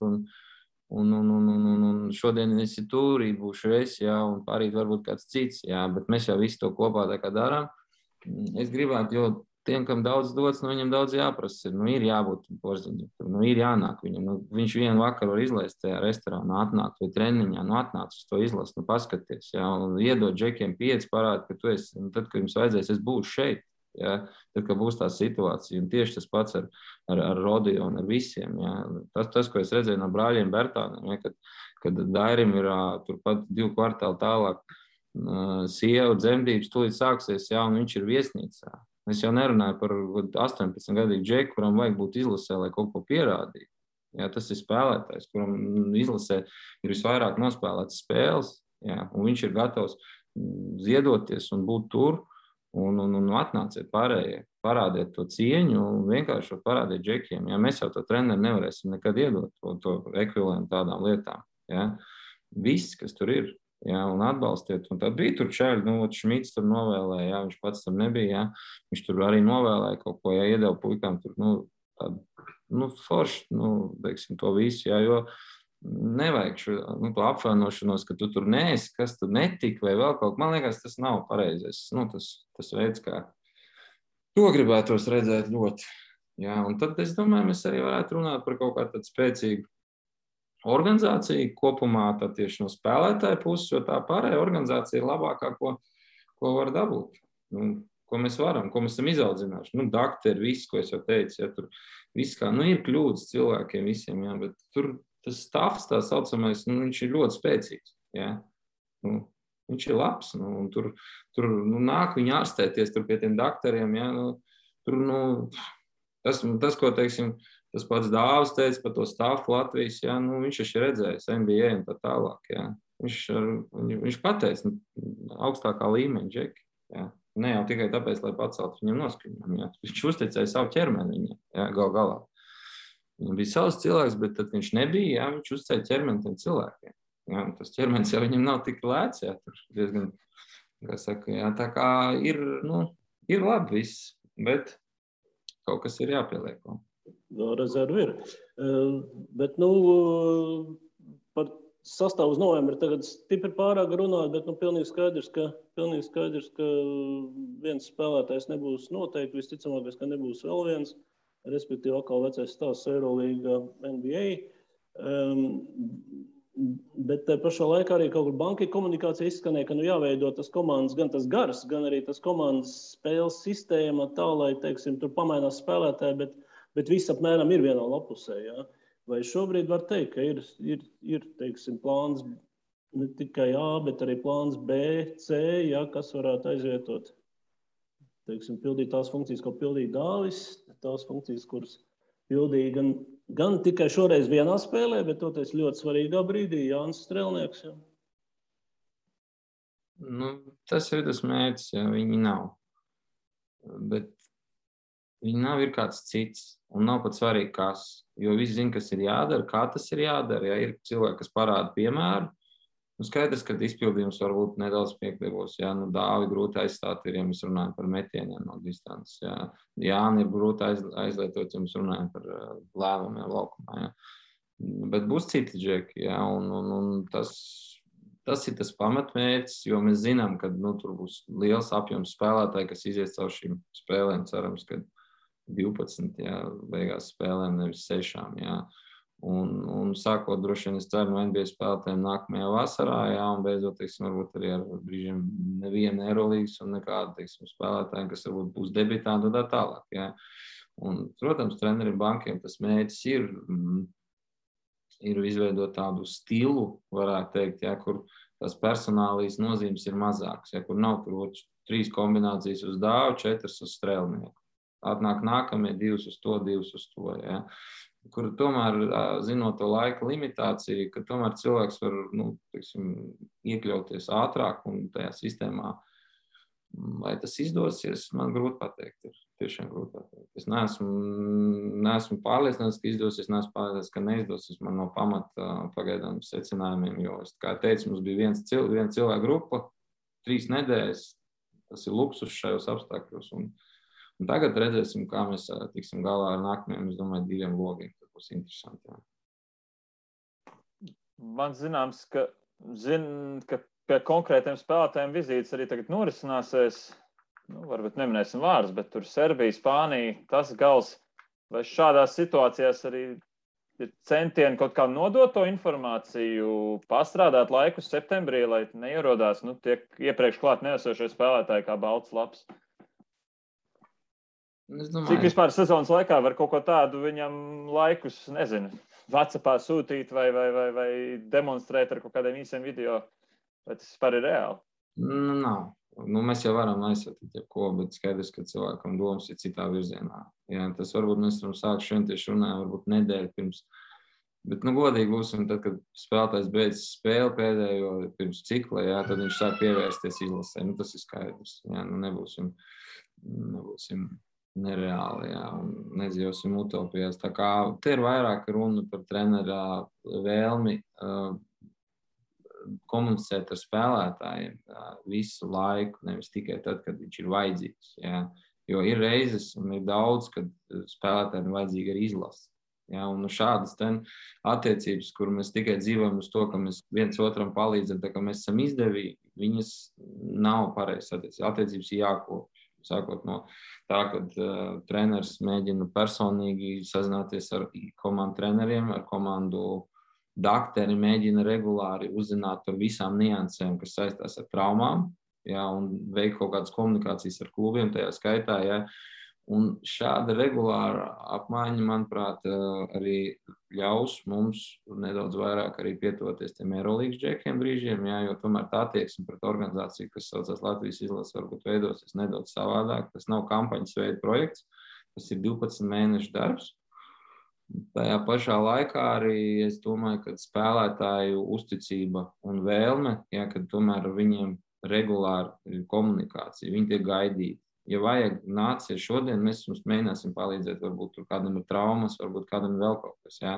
Un šodien es ir tur, būšu es, jā, un pārīt varbūt kāds cits, jā, bet mēs jau visu to kopā tā kā darām. Es gribētu, jo tiem, kam daudz dots, viņam daudz jāprasa. Ir jābūt Porziņģim, ir jānāk viņam. Viņš vienu vakaru var izlaist tajā restorānā, atnākt vai treniņā, atnāc uz to izlast, paskaties, jā, un iedot džekiem 5, parādi, ka tu esi, un tad, kad jums vajadzēs, es būšu šeit. Ja, tad, kad būs tā situācija, un tieši tas pats ar Rodiju un ar visiem. Ja. Tas, ko es redzēju no brāļiem Bertāniem, ja, kad Dairim ir turpat 2 kvartāli tālāk sieva dzemdības tūlīt sāksies, ja, un viņš ir viesnīcā. Es jau nerunāju par 18-gadīgu džeku, kuram vajag būt izlasē, lai kaut ko pierādītu. Ja, tas ir spēlētājs, kuram izlasē ir visvairāk nospēlētas spēles, ja, un viņš ir gatavs ziedoties un būt tur. Un atnāciet pārējie, parādiet to cieņu un vienkārši parādiet džekiem. Ja? Mēs jau to treneri nevarēsim nekad iedot to ekvivalentu tādām lietām. Ja? Viss, kas tur ir, ja? Un atbalstiet. Un tad bija tur čaļi, Šmits tur novēlēja, ja? Viņš pats tam nebija. Ja? Viņš tur arī novēlēja kaut ko, ja iedeva puikām tur, tādu, forši, teiksim, to visu, ja? Jo nevajag to apvainošanos, ka tu tur neesi, kas tur netika vai vēl kaut. Man liekas, tas nav pareizais. Tas veids, kā to gribētos redzēt ļoti. Jā, un tad, es domāju, mēs arī varētu runāt par kaut kādu tādu spēcīgu organizāciju kopumā, tad tieši no spēlētāja puses, jo tā pārējā organizācija ir labākā, ko var dabūt. Ko mēs varam, ko mēs esam izaudzinājuši. Dakteri, viss, ko es jau teicu, ja, tur viss kā, ir kļūdas cilvēkiem visiem, jā, bet tur tas stāvs, tā saucamais, viņš ir ļoti spēcīgs. Ja? Viņš ir labs. Tur nāk viņi ārstēties tur pie tiem daktariem. Ja? Tas, ko teiksim, tas pats Dāvis teica par to stāvu Latvijas, ja? Viņš ir redzējis NBA un tā tālāk. Ja? Viņš pateica augstākā līmeņa džeki. Ja? Ne jau tikai tāpēc, lai paceltu viņam noskaņojumu. Ja? Viņš uzticēja savu ķermeni viņam, ja? Galā. Viņam bija savs cilvēks, bet tad viņš nebija, jā, viņš uzcēja ķermeni tiem cilvēkiem. Jā, tas ķermenis jau viņam nav tik lēts, jā, tur diezgan, kā saka, jā, tā kā ir labi viss, bet kaut kas ir jāpieliek. Rezervi ir. Bet, par sastāvu uz novembri tagad stipri pārāk runāt, bet, pilnīgi skaidrs, ka viens spēlētājs nebūs noteikti, visticamākais, ka nebūs vēl viens. Respektīvi, atkal vecais stāsts Eirolīga NBA. Bet pašā laikā arī kaut kur bankai komunikācija izskanēja, ka jāveido tas komandas, gan tas gars, gan arī tas komandas spēles sistēma tā, lai, teiksim, tur pamainās spēlētāji, bet viss apmēram ir vienā lapusē. Ja? Vai šobrīd var teikt, ka ir teiksim, plāns ne tikai A, bet arī plāns B, C, ja, kas varētu aizvietot, teiksim, pildīt tās funkcijas, ko pildīja Dāvis, tās funkcijas, kuras pildīja gan tikai šoreiz vienā spēlē, bet toties ļoti svarīgā brīdī Jānis Strelnieks. Ja. Nu, tas ir tas mērķis, ja viņi nav. Bet viņi nav ir kāds cits, un nav pat svarīgi, kas. Jo visi zina, kas ir jādara, kā tas ir jādara. Ja ir cilvēki, kas parāda piemēru, skaidrs, ka izpildījums varbūt nedaudz piekļuvos. Ja? Dāvi grūti aizstāt ir, ja mēs runājam par metieniem no distances. Ja? Jāni ir grūti aizlietot, ja mēs runājam par lēmumiem laukumā. Ja? Bet būs citi džeki, ja? un tas ir tas pamatmērķis, jo mēs zinām, ka tur būs liels apjoms spēlētāji, kas izies caur šīm spēlēm, cerams, ka 12, ja, beigās spēlēm, nevis 6. Ja. Un sākot droši vien, es ceru, no NBA spēlētājiem nākamajā vasarā, ja, un beidzot, teiksim, varbūt arī ar brīžiem nevienu Eurolīgas un nekādu, teiksim, spēlētājiem, kas varbūt būs debitanti un tā tālāk. Ja. Un, protams, treneriem bankiem tas mērķis ir izveidot tādu stilu, varētu teikt, ja, kur tās personālijas nozīmes ir mazākas, ja, kur nav tur 3 kombinācijas uz Dāvu, 4 uz Strelnieku. Atnāk nākamie 2 uz to, 2 uz to. Ja. Kur tomēr, zinot to laika limitāciju, ka tomēr cilvēks var teiksim, iekļauties ātrāk un tajā sistēmā. Vai tas izdosies, man grūti pateikt. Ir tiešām grūti pateikt. Es neesmu pārliecināts, ka izdosies, neesmu pārliecināts, ka neizdosies. Man no pamata pagaidām secinājumiem, jo, kā teicu, mums bija viena cilvēka grupa, 3 nedēļas. Tas ir luksus šajos apstākļos. Un tagad redzēsim, kā mēs tiksim galā ar nākamajiem, es domāju, 2 logiem. Tas būs interesanti. Jā. Man zināms, ka pie konkrētiem spēlētājiem vizītes arī tagad norisināsies. Varbūt neminēsim vārdus, bet tur Serbija, Spānija, tas gals. Vai šādās situācijās arī ir centieni kaut kā nodot to informāciju, pastrādāt laiku septembrī, lai neierodās tiek iepriekš klāt neesošie spēlētāji kā balts laps? Cik vispār sezonas laikā var kaut ko tādu viņam laikus, nezinu, WhatsAppā sūtīt vai demonstrēt ar kaut kādiem īsiem video? Vai tas vispār ir reāli? Nav. Mēs jau varam aizsūtīt jebko, bet skaidrs, ka cilvēkam domas ir citā virzienā. Jā, tas varbūt mēs varam sākt šodien tieši runājam, varbūt nedēļu pirms. Bet, godīgi būsim, tad, kad spēlētājs beidz spēli pēdējo pirms cikla, jā, tad viņš sāk pievērsties izlasē. Tas ir skaidrs. Jā, nebūsim nereāli, jā, un nedzīvosim utopijās. Tā kā te ir vairāk runa par trenera vēlmi komunicēt ar spēlētājiem visu laiku, nevis tikai tad, kad viņš ir vajadzīgs. Jā. Jo ir reizes un ir daudz, kad spēlētājiem ir vajadzīga arī izlase. Jā, un šādas attiecības, kur mēs tikai dzīvojam uz to, ka mēs viens otram palīdzam, tā kā mēs esam izdevīgi, viņas nav pareizas attiecības. Attiecības ir jākopj. Sākot no tā, kad treneris mēģina personīgi sazināties ar komandu treneriem, ar komandu dakteri, mēģina regulāri uzzināt par visām niansēm, kas saistās ar traumām, jā, un veikt kaut kādas komunikācijas ar klubiem, tajā skaitā. Jā. Un šāda regulāra apmaiņa, manuprāt, arī ļaus mums nedaudz vairāk arī pietuvoties tiem Eurolīgas džekiem brīžiem, jā, jo tomēr tā attieksme pret organizāciju, kas saucās Latvijas izlase, varbūt veidosies nedaudz savādāk. Tas nav kampaņas veida projekts, tas ir 12 mēnešu darbs. Tajā pašā laikā arī es domāju, ka spēlētāju uzticība un vēlme, jā, kad tomēr viņiem regulāri ir komunikācija, viņi tiek gaidīti. Ja vajag, nāciet šodien, mēs jums mēģināsim palīdzēt, varbūt tur kādam ir traumas, varbūt kādam vēl kaut kas. Jā.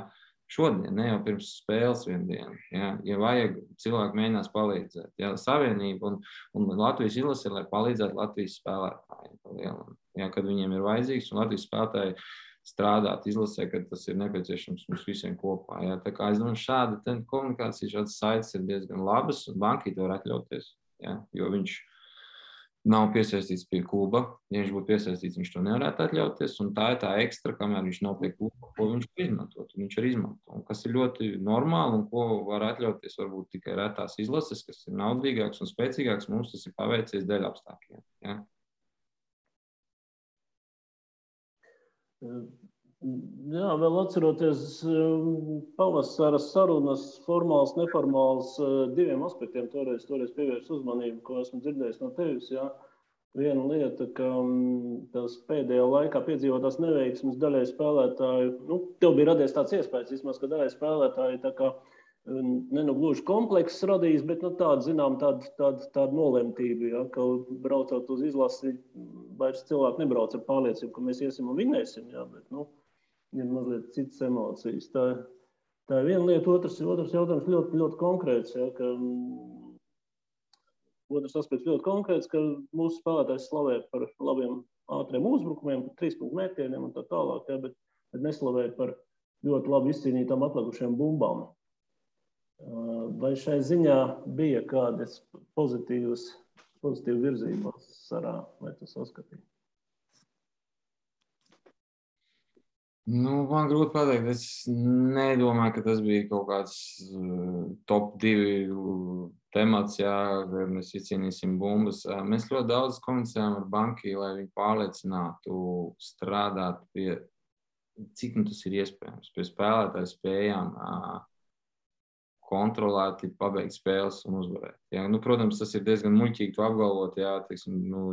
Šodien, ne jau pirms spēles vienu dienu. Jā. Ja vajag, cilvēki mēģinās palīdzēt. Jā. Savienība un Latvijas izlase, lai palīdzētu Latvijas spēlētājiem. Jā, kad viņiem ir vajadzīgs, un Latvijas spēlētāji strādāt izlasē, kad tas ir nepieciešams mums visiem kopā. Jā. Tā kā es domāju, šāda komunikācija, šādas saites ir diezgan labas, un banki to var atļauties. Jā. Jo viņš nav piesaistīts pie kluba. Ja viņš būtu piesaistīts, viņš to nevarētu atļauties. Un tā ir tā ekstra, kamēr viņš nav pie kluba, ko viņš var izmantot. Viņš var izmantot. Un kas ir ļoti normāli un ko var atļauties varbūt tikai retās izlases, kas ir naudīgāks un spēcīgāks. Mums tas ir paveicies dēļ apstākļiem. Ja? Jā, vēl atceroties pavasara sarunas, formāls, neformāls, diviem aspektiem toreiz pievērst uzmanību, ko esmu dzirdējis no tevis. Jā. Viena lieta, ka tās pēdējā laikā piedzīvotās neveiksmes daļai spēlētāju, tev bija radies tāds iespējas, vismaz, ka daļai spēlētāji tā kā gluži komplekss radījis, bet tāda nolemtība, ja, ka braucot uz izlasi, vairs cilvēki nebrauc ar pārliecību, ka mēs iesim un vinēsim, ja, bet, ir mazliet citas emocijas. Tā ir viena lieta, otrs jautājums ļoti, ļoti konkrēts, ja, ka otrs aspekts ļoti konkrēts, ka mūsu spēlētājs slavē par labiem ātriem uzbrukumiem, par 3-punktu mētieniem un tā tālāk, ja, bet neslavē par ļoti labi izcīnītām atlikušiem bumbām. Vai šai ziņā bija kādas pozitīvas virzības sarā, vai tu saskatīji? Man grūti pateikt. Es nedomāju, ka tas bija kaut kāds top 2 temats, ja mēs izcīnīsim bumbas. Mēs ļoti daudz komunicējām ar banki, lai viņi pārliecinātu strādāt pie, cik tas ir iespējams, pie spēlētāju spējām kontrolēti pabeigt spēles un uzvarēt. Ja? Protams, tas ir diezgan muļķīgi to apgalvot, ja?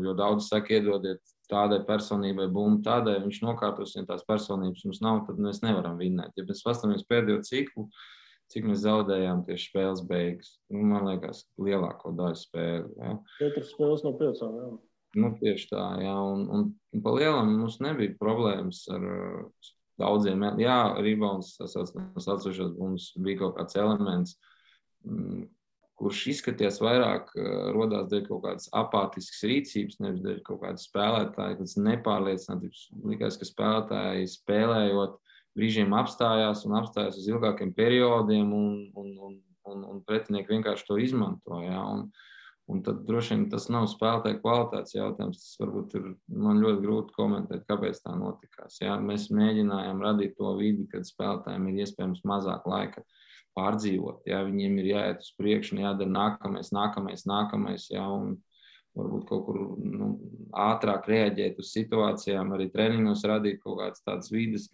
Jo daudz saka, iedodiet tādai personībai bumbu, tādai viņš nokārtos, ja tās personības mums nav, tad mēs nevaram vinnēt. Ja mēs pastamies pēdējo ciklu, cik mēs zaudējām tieši spēles beigas. Man liekas, lielāko daļu spēli. Ja? 4 spēles no 5, jā. Tieši tā, jā. Un pa lielam mums nebija problēmas ar daudziem. Jā, rebounds, tas atsevišķos bumbas bija kaut kāds elements, kurš izskaties vairāk rodās dēļ kaut kādas apātiskas rīcības, nevis dēļ kaut kādas spēlētāji, kāds nepārliecinātības. Likās, ka spēlētāji spēlējot brīžiem apstājās uz ilgākiem periodiem un pretinieki vienkārši to izmanto. Ja? Un tad droši vien tas nav spēlētāju kvalitātes jautājums. Tas varbūt ir man ļoti grūti komentēt, kāpēc tā notikās. Ja? Mēs mēģinājām radīt to vidi, kad spēlētājiem ir iespējams mazāk laika pārdzīvot. Ja? Viņiem ir jāiet uz priekšu un jādara nākamais, ja? Un varbūt kaut kur ātrāk reaģēt uz situācijām, arī treniņos radīt kaut kādas tādas vides,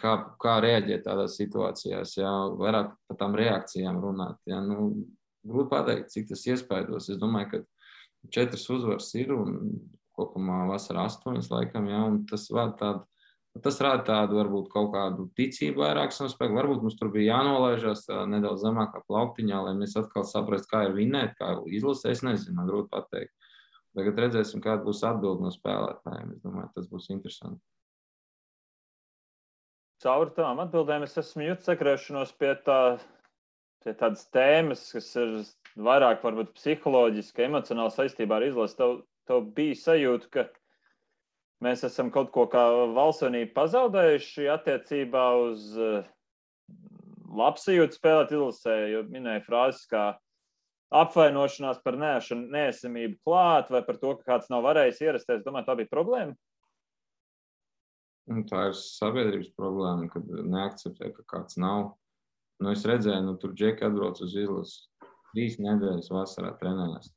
kā reaģēt tādās situācijās, ja? Vairāk par tām reakcijām runāt. Ja? Grūti pateikt, cik tas iespaidos. Es domāju, ka 4 uzvaras ir un kopumā vasarā 8 laikam, ja, un tas rāda tādu varbūt kaut kādu ticību vairāk savu. Varbūt mums tur bija jānolaižās nedaudz zemākā plauktiņā, lai mēs atkal saprastu, kā ir vinnēt, kā izlasē. Es nezinu, man grūti pateikt. Tagad redzēsim, kāda būs atbilde no spēlētājiem. Es domāju, tas būs interesanti. Caur tām atbildēm es esmu jūtis sakrēšanos pie tādas tēmas, kas ir vairāk varbūt psiholoģiski, emocionāli saistībā ar izlasi. Tev bija sajūta, ka mēs esam kaut ko kā valstsvienību pazaudējuši attiecībā uz labsajūtu spēlēt izlasē, jo minēja frāzes kā apvainošanās par neesamību klāt vai par to, ka kāds nav varējis ierasties. Domāju, tā bija problēma? Tā ir sabiedrības problēma, kad neakceptē, ka kāds nav. Es redzēju, tur džeki atbrauc uz izlasi 3 nedēļas vasarā trenējās.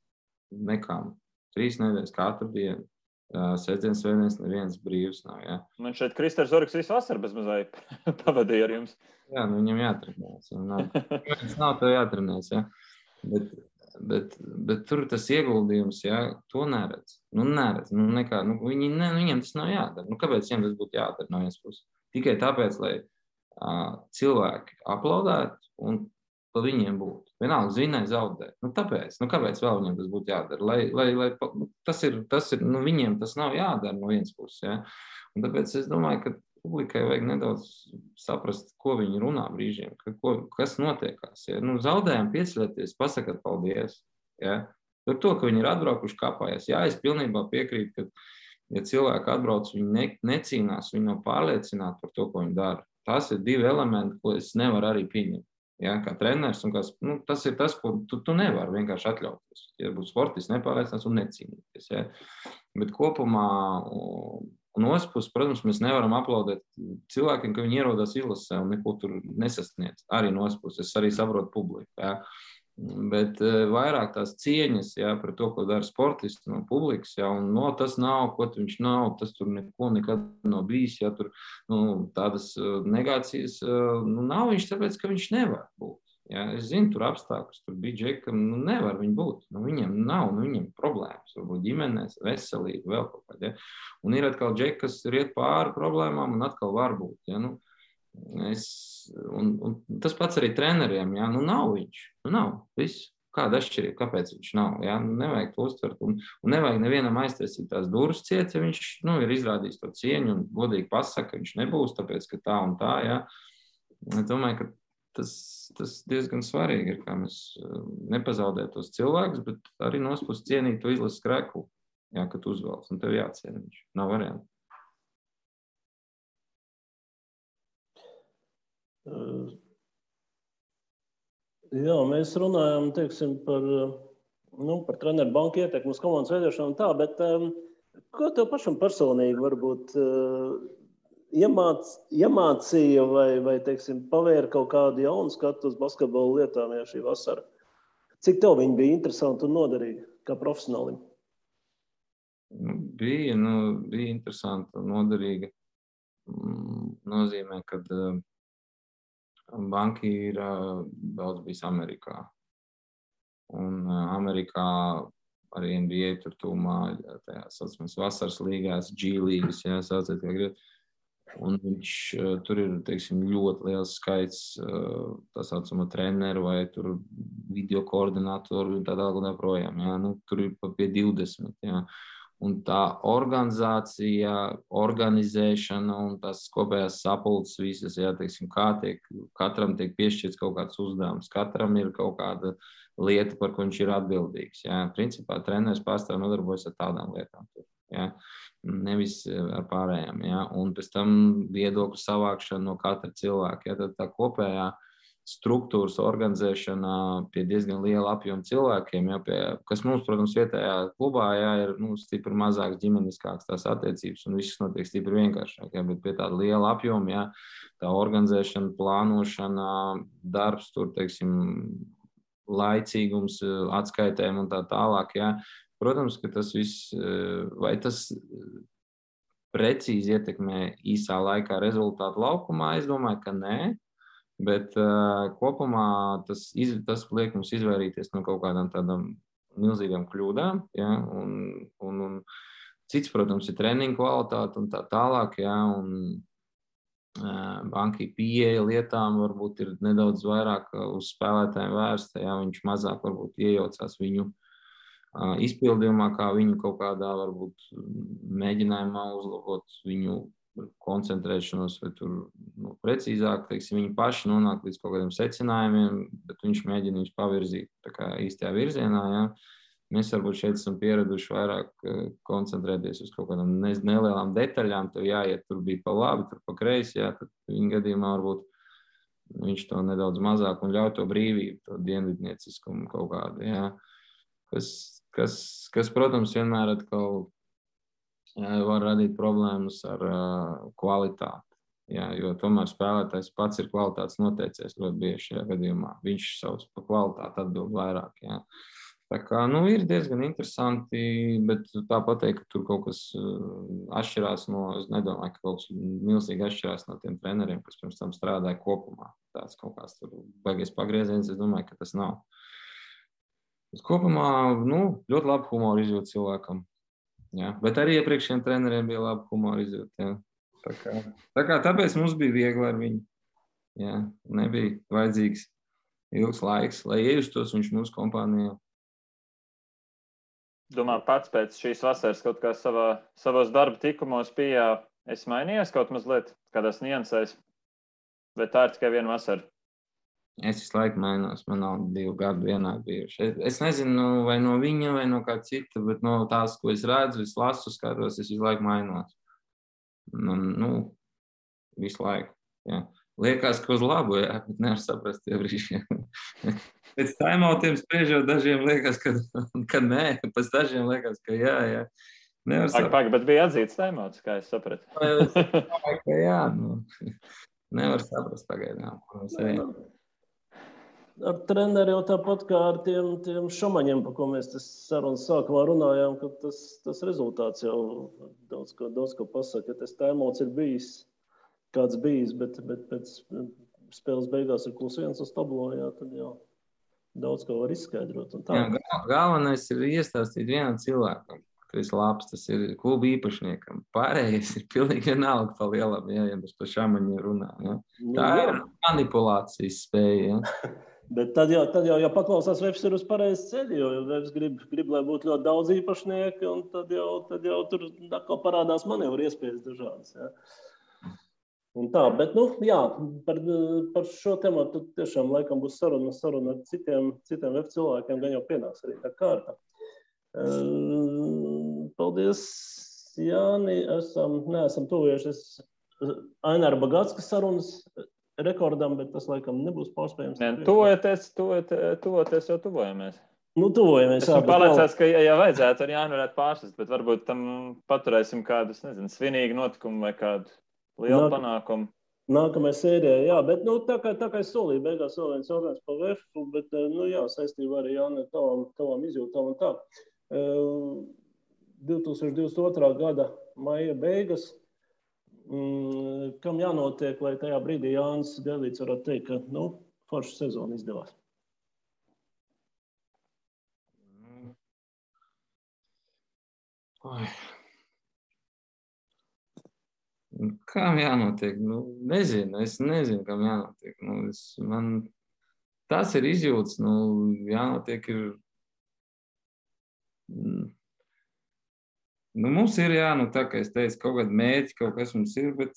Nekām. 3 nedēļas katru dienu. Sestdienas, svētdienas neviens brīvs nav. Ja? Man šeit Kristers Zorgs visu vasaru bez mazai pavadīja ar jums. Jā, viņam jātrenēs. Viņam nav tev jātrenēs. Ja? Bet tur tas ieguldījums, ja, to neredz. Viņiem tas nav jādara. Kāpēc viņiem tas būtu jādara no vienas puses? Tikai tāpēc, lai cilvēki aplaudētu un pa viņiem būtu. Vienalga zinēja zaudēt. Tāpēc, kāpēc vēl viņiem tas būtu jādara? Tas ir, viņiem tas nav jādara no vienas puses. Ja? Un tāpēc es domāju, ka publikai vajag nedaudz saprast, ko viņi runā brīžiem, kas notiekās. Ja? Zaudējām, pieceļieties, pasakat paldies. Ja? Par to, ka viņi ir atbraukuši kāpājās. Jā, es pilnībā piekrītu, ka, ja cilvēki atbrauc, viņi necīnās, viņi nav pārliecināti par to, ko viņi dara. Tas ir 2 elementi, ko es nevaru arī pieņemt. ja, kā treneris, un tas ir tas, ko tu nevari vienkārši atļauties. Ja būtu sportists nepārliecināts un necīnīties. Ja. Bet kopumā, un otrs puses, protams, mēs nevaram aplaudēt cilvēkiem, ka viņi ierodās izlasē un neko tur nesasniedz. Arī no otrs puses, es arī saprotu publiku. Ja. Bet vairāk tās cieņas, ja, par to, ko dara sportisti no publikas, ja, un tas nav, ko viņš nav, tas tur neko nekad nav bijis, ja, tur tādas negācijas nav viņš, tāpēc, ka viņš nevar būt. Ja. Es zinu, tur apstākļus, tur bija džekam, nevar viņi būt, viņiem nav, viņiem problēmas, varbūt ģimenēs, veselība, vēl kaut kādā. Ja. Un ir atkal džeki, kas riet pāri problēmām un atkal var būt. Ja. Un tas pats arī treneriem, ja? Nav viņš, nav, viss. Kāda atšķirība, kāpēc viņš nav, ja? Nevajag to uztvert un nevajag nevienam aiztaisīt tās durvis ciet, ja viņš ir izrādījis to cieņu un godīgi pasaka, ka viņš nebūs, tāpēc, ka tā un tā, ja? Es domāju, ka tas diezgan svarīgi ir, kā mēs nepazaudēt tos cilvēkus, bet arī nospus cienīt to izlases skreklu, ja, kad uzvalc, un tev jāciena viņš, nav variantu. Jā, mēs runājam, teiksim, par treneru banku ietekmi uz komandas veidošanu un tā, bet ko tev pašam personīgi varbūt iemācīja vai teiksim, pavēra kaut kādu jaunu skatu uz basketbolu lietām, ja šī vasara? Cik tev viņi bija interesanti un noderīgi kā profesionālim? Bija interesanti un noderīgi. Nozīmē, ka banki ir daudz bijis Amerikā. Un Amerikā arī NBA tur tūmā tajās saucamās vasaras līgās, G līgas, ja sauciet, kā grib. Un viņš tur ir, teiksim, ļoti liels skaits tā saucamo treneru vai tur video koordinatoru un tā tālāk un tā projām. Ja. Tur ir pie 20, ja. Un tā organizācija, organizēšana un tās kopējās sapulces visas, jā, teiksim, katram tiek piešķirts kaut kāds uzdevums, katram ir kaut kāda lieta, par ko viņš ir atbildīgs. Jā. Principā treneris pārstāv nodarbojas ar tādām lietām, jā. Nevis ar pārējām. Jā. Un pēc tam viedokļu savākšana no katra cilvēka. Jā. Tad tā kopējā struktūras organizēšana pie diezgan liela apjoma cilvēkiem, ja, kas mums, protams, vietējā klubā ja, ir stipri mazāks, ģimeniskāks tās attiecības un viss notiek stipri vienkāršāk, ja, bet pie tāda liela apjoma, ja, tā organizēšana, plānošana, darbs, tur, teiksim, laicīgums, atskaitēm un tā tālāk, ja. Protams, ka tas viss, vai tas precīzi ietekmē īsā laikā rezultātu laukumā, es domāju, ka nē. Bet kopumā tas liek mums izvairīties no kaut kādām tādām milzīgām kļūdām. Ja? Un cits, protams, ir treniņu kvalitāte un tā tālāk. Ja? Un bankai pieeja lietām varbūt ir nedaudz vairāk uz spēlētājiem vērsta. Ja? Viņš mazāk varbūt iejaucās viņu izpildījumā, kā viņu kaut kādā varbūt mēģinājumā uzlabot viņu koncentrēšanos vai tur precīzāk, teiksim, viņi paši nonāk līdz kaut kādiem secinājumiem, bet viņš mēģina viņus pavirzīt tā kā īstajā virzienā, ja. Mēs varbūt šeit esam pieraduši vairāk koncentrēties uz kaut kādām nelielām detaļām, tev jāiet, tur bija pa labi, tur pa kreisi, ja, tad viņa gadījumā varbūt viņš to nedaudz mazāk un ļauj to brīvību, to dienvidnieciskumu kaut kādu, ja. Kas, protams, vienmēr atkal var radīt problēmas ar kvalitāti. Jā, jo tomēr spēlētājs pats ir kvalitātes noteicies ļoti bieži šajā gadījumā. Viņš savus par kvalitāti atbild vairāk. Jā. Tā kā, ir diezgan interesanti, bet tā pateikt, ka tur kaut kas atšķirās es nedomāju, ka kaut kas milzīgi atšķirās no tiem treneriem, kas pirms tam strādāja kopumā. Tāds kaut kāds tur baigies pagrieziens, es domāju, ka tas nav. Bet kopumā, ļoti labi humoru izjūt cilvēkam. Jā, bet arī iepriekšējiem treneriem bija labi humoru izjūt. Jā. Tāpēc mums bija viegli ar viņu. Jā, nebija vajadzīgs ilgs laiks, lai iejustos viņš mūsu kompānijā. Domā, pats pēc šīs vasaras kaut kā savos darba tikumos esi mainījies kaut mazliet kādās niansēs? Vai tā ir tikai viena vasara? Es visu laiku mainos, man nav 2 gadu vienā bijuši. Es nezinu, vai no viņa, vai no kā cita, bet no tās, ko es redzu, es lasu, skatos, es visu laiku mainos. Visu laiku. Jā. liekas, ka uz labu, jā, bet nevar saprast tie brīži. Pēc timeoutiem spriežot, dažiem liekas, ka nē, pēc dažiem liekas, ka jā. Nevar saprast. Bet bija atzīts timeouts, kā es sapratu. Es domāju, ka jā, nevar saprast pagaidām. Ar treneri jau tāpat kā ar tiem šomaņiem, par ko mēs tas sarunas sākumā runājām, ka tas rezultāts jau daudz ko pasaka. Ja tas timeouts ir bijis, kāds bijis, bet pēc spēles beigās ir +1 uz tablo, jā, tad jau daudz ko var izskaidrot. Jā, galvenais ir iestāstīt vienam cilvēkam, ka tas labs, tas ir kluba īpašniekam. Pārējais ir pilnīgi vienalga pa lielam, ja mēs par šamaņiem runā. Ja. Tā ir manipulācijas spēja. Ja. Bet tad jau paklausās, Vefs ir uz pareizes ceļa, jo Vefs grib, lai būtu ļoti daudz īpašnieki, un tad jau tur atkal parādās manevru iespējas dažādas. Ja. Un tā, bet, jā, par šo tematu tiešām laikam būs saruna ar citiem Vefs cilvēkiem, gan jau pienāks arī tā kārta. Paldies, Jāni, neesam tuvojušies Aināra Bagātskas sarunas rekordam, bet tas laikam nebūs pārspējams. Tuvoties jau tuvojamies. Tuvojamies. Esmu pārliecināts, ka ja vajadzētu, arī Jāni varētu pārsist, bet varbūt tam paturēsim kādu, svinīgu notikumu vai kādu lielu panākumu. Nākamajā sērijā, jā, bet tā kā es solīju, beigās vēl viens jautājums par Vefu, bet, jā, saistībā arī Jāni tavam izjūtām un tā. 2022. gada maija beigas, kam jānotiek, lai tajā brīdī Jānis Gailīts varētu teikt, ka, forša sezona izdevās? Kam jānotiek? Es nezinu, kam jānotiek. Tas ir izjūts, jānotiek ir. Mums ir, tā kā es teicu, kaut kādi mērķi, kaut kas mums ir, bet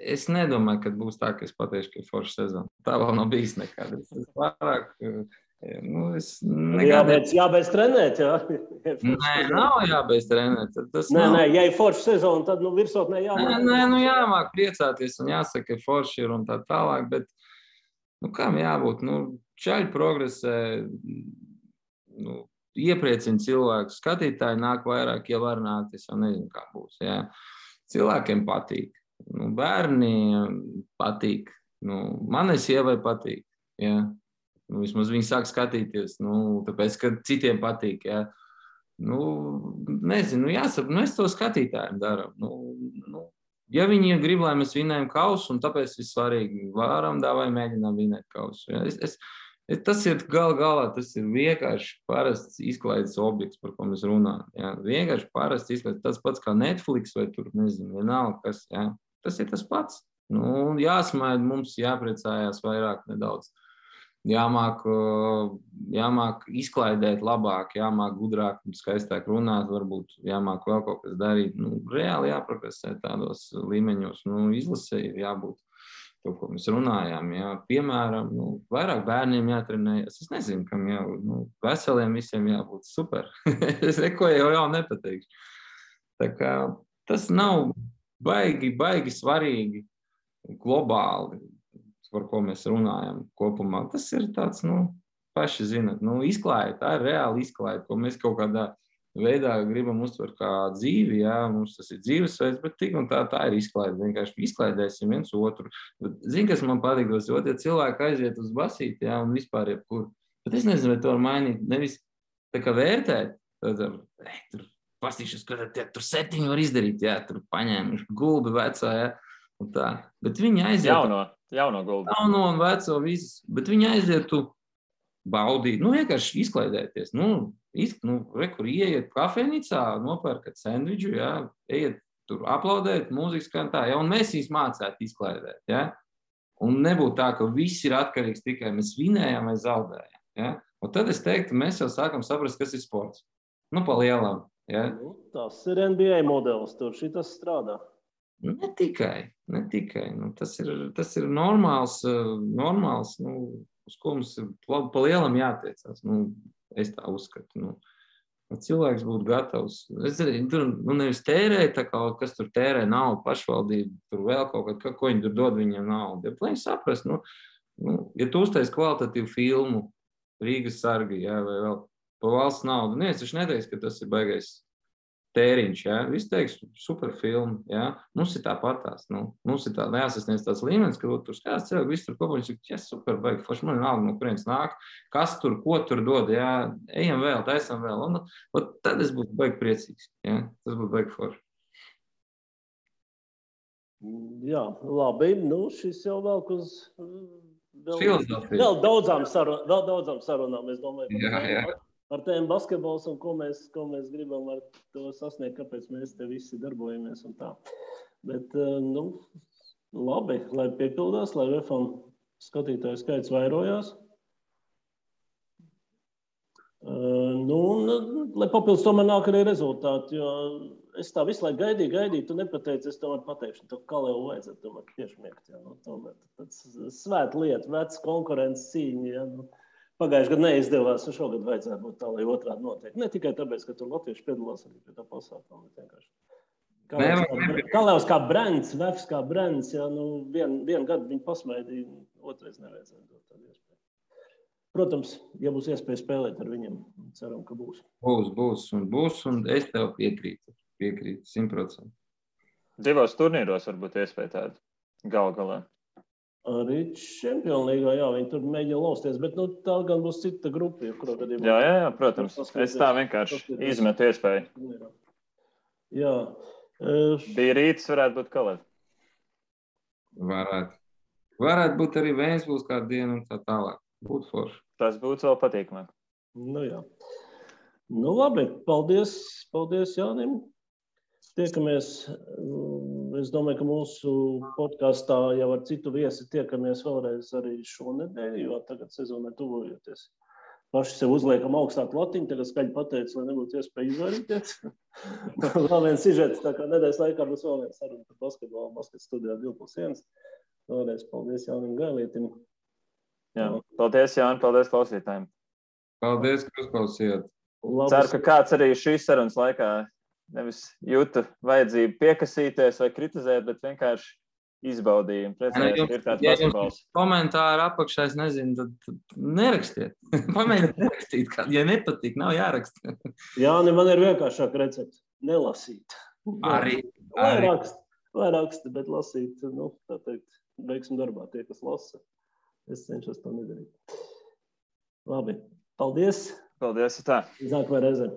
es nedomāju, ka būs tā, ka es pateikšu, ka ir forša sezona. Tā vēl nav bijis nekad. Es vairāk, jābeidz trenēt, jā? Nē, nav jābeidz trenēt. Nē, ja ir forša sezona, tad virsotnē jāmāk. Nē, jāmāk priecāties un jāsaka, ka forši ir un tā tālāk, bet kam jābūt? Čaļi progresē, iepriecina cilvēku, skatītāji nāk vairāk, ja var nākt, es jau nezinu, kā būs. Jā. Cilvēkiem patīk, bērniem patīk, manai sievai patīk. Jā. Vismaz viņi sāk skatīties, tāpēc, ka citiem patīk. Jā. Nezinu, jāsaka, mēs to skatītājiem darām. Ja viņi grib, lai mēs vinējam kausu, un tāpēc ir svarīgi, varam vai mēģinām vinēt kausu. Jā. Tas ir galā, tas ir vienkārši parasts izklaides objekts, par ko mēs runājam. Jā. Vienkārši parasts izklaides, tas pats kā Netflix vai tur, nezinu, vienalga kas. Jā. Tas ir tas pats. Jāsmaida, mums jāpriecājās vairāk nedaudz. Jāmāk izklaidēt labāk, jāmāk gudrāk un skaistāk runāt, varbūt jāmāk vēl kaut kas darīt. Reāli jāprogresē tādos līmeņos. Izlasē ir jābūt. To, ko mēs runājām, jā. Piemēram, vairāk bērniem jātrenējas. Es nezinu, kam jābūt. Veseliem visiem jābūt super. Es neko jau nepateikšu. Tā kā tas nav baigi svarīgi globāli, par ko mēs runājam kopumā. Tas ir tāds, paši zinat, izklaide, tā ir reāli izklaide, ko mēs kaut kādā veidā gribam uztvert kā dzīvi, jā, mums tas ir dzīvesveids, bet tik un tā ir izklaide. Vienkārši izklaidēsim viens otru. Zini, kas man patīk, ja cilvēki aiziet uz basīti, jā, un vispār jebkur. Bet es nezinu, vai to var mainīt. Nevis tā kā vērtēt, tur pastīšos, ka tur 7 var izdarīt, jā, tur paņēmuši gulbi vecā, jā, un tā. Bet viņi aiziet. Jauno gulbi. Jauno un veco visas, bet viņi aiziet tu baudīt, vienkārši izklaidēties, kur ieiet kafejnīcā, nopērkat sendviču, jā, ejiet tur aplaudēt, mūzikas skan tā, jā, un mēs viņus mācētu izklaidēt, jā, un nebūtu tā, ka viss ir atkarīgs tikai mēs vinējam vai zaudējam, jā, un tad es teiktu, mēs jau sākam saprast, kas ir sports, pa lielam, jā. Tas ir NBA modelis, tur šitas strādā. Ne tikai, tas ir normāls, uz ko mums ir pa lielam jātiecās. Es tā uzskatu. Cilvēks būtu gatavs. Tur nevis tērēt, kas tur tērē naudu, pašvaldību, tur vēl kaut kā, ko viņi tur dod viņiem naudu. Ja, lai viņi saprast, ja tu uztais kvalitatīvu filmu, Rīgas sargi, jā, vai vēl pa valsts naudu, neviens taču neteiks, ka tas ir baigais tēriņš, jā. Viss teiks, super filmu, jā. Mums ir tāpatās, mums ir tā neasasniedz tāds līmenis, ka tur skās cilvēki, viss tur kopā, ja super baigi, forši man naudu, no kurienes nāk, kas tur, ko tur dod, jā, ejam vēl, taisam vēl, un tad es būtu baigi priecīgs, jā, tas būtu baigi forši. Jā, labi, šis jau velk uz vēl daudzām sarunām, es domāju, jā. Par tēmu basketbols un ko mēs gribam ar to sasniegt, kāpēc mēs te visi darbojamies un tā. Bet, labi, lai piepildās, lai VFam skatītāju skaits vairojās. Lai papildus tomēr nāk arī rezultāti, jo es tā visu laiku gaidīju, tu nepateici, es tomēr pateikšu, to kā jau vajadzētu tomēr piešmiegt, jā, tomēr tāds svēta lieta, vecs konkurences cīņa, jā, Pagājuši gadu neizdevās, un šogad vajadzētu būt tā, lai otrādi notiek. Ne tikai tāpēc, ka tur latvieši piedalās arī pie tā pasākuma. Kalevs kā brands, Vefs kā brands, jā, vienu gadu viņi pasmaidīja, otrais nevajadzētu dot tādu iespēju. Protams, ja būs iespēja spēlēt ar viņiem, ceram, ka būs. Būs, un es tev piekrītu 100%. 2 turnīros varbūt iespēja tādu galā. Arī Čempionu līgā, jā, viņi tur mēģina lausties, bet tā gan būs cita grupa, kurā gadījumā. Jā, protams. Es tā vienkārši izmetu iespēju. Jā. Bija Rītas, varētu būt Kalēt. Varētu būt arī Vēnsbūs kādu dienu un tā tālāk. Būtu forši. Tas būtu vēl patīkamāk. Jā. Labi, paldies Jānim. Tiekamies, es domāju, ka mūsu podkastā jau ar citu viesi tiekamies vēlreiz arī šonedēļ, jo tagad sezonai tuvojoties. Paši sev uzliekam augstāku latiņu, tagad skaļi pateicu, lai nebūtu iespēja izvairīties. Vēl viens sižets, tā kā nedēļas laikā būs vēl viens saruna par basketbolu, basket studijā 2+1. Vēlreiz paldies Jānim Gailietim. Jā, paldies Jāni, paldies klausītājiem. Paldies, ka uzklausījāt. Ceru, ka kāds arī šīs sarunas laikā nevis jūtu vajadzību piekasīties vai kritizēt, bet vienkārši izbaudījumu. Priecājos, ir tāds basketbols. Komentāri apakšā, es nezinu, tad nerakstiet. Pamēģiniet nerakstīt, ja nepatīk, nav jāraksta. Jā, man ir vienkāršāk recepts. Nelasīt. Arī. Vai raksta, bet lasīt, tā teikt, veiksim darbā tie, kas lasa. Es cenšos to nedarīt. Labi, paldies. Paldies, tā. Nākamajā reizē.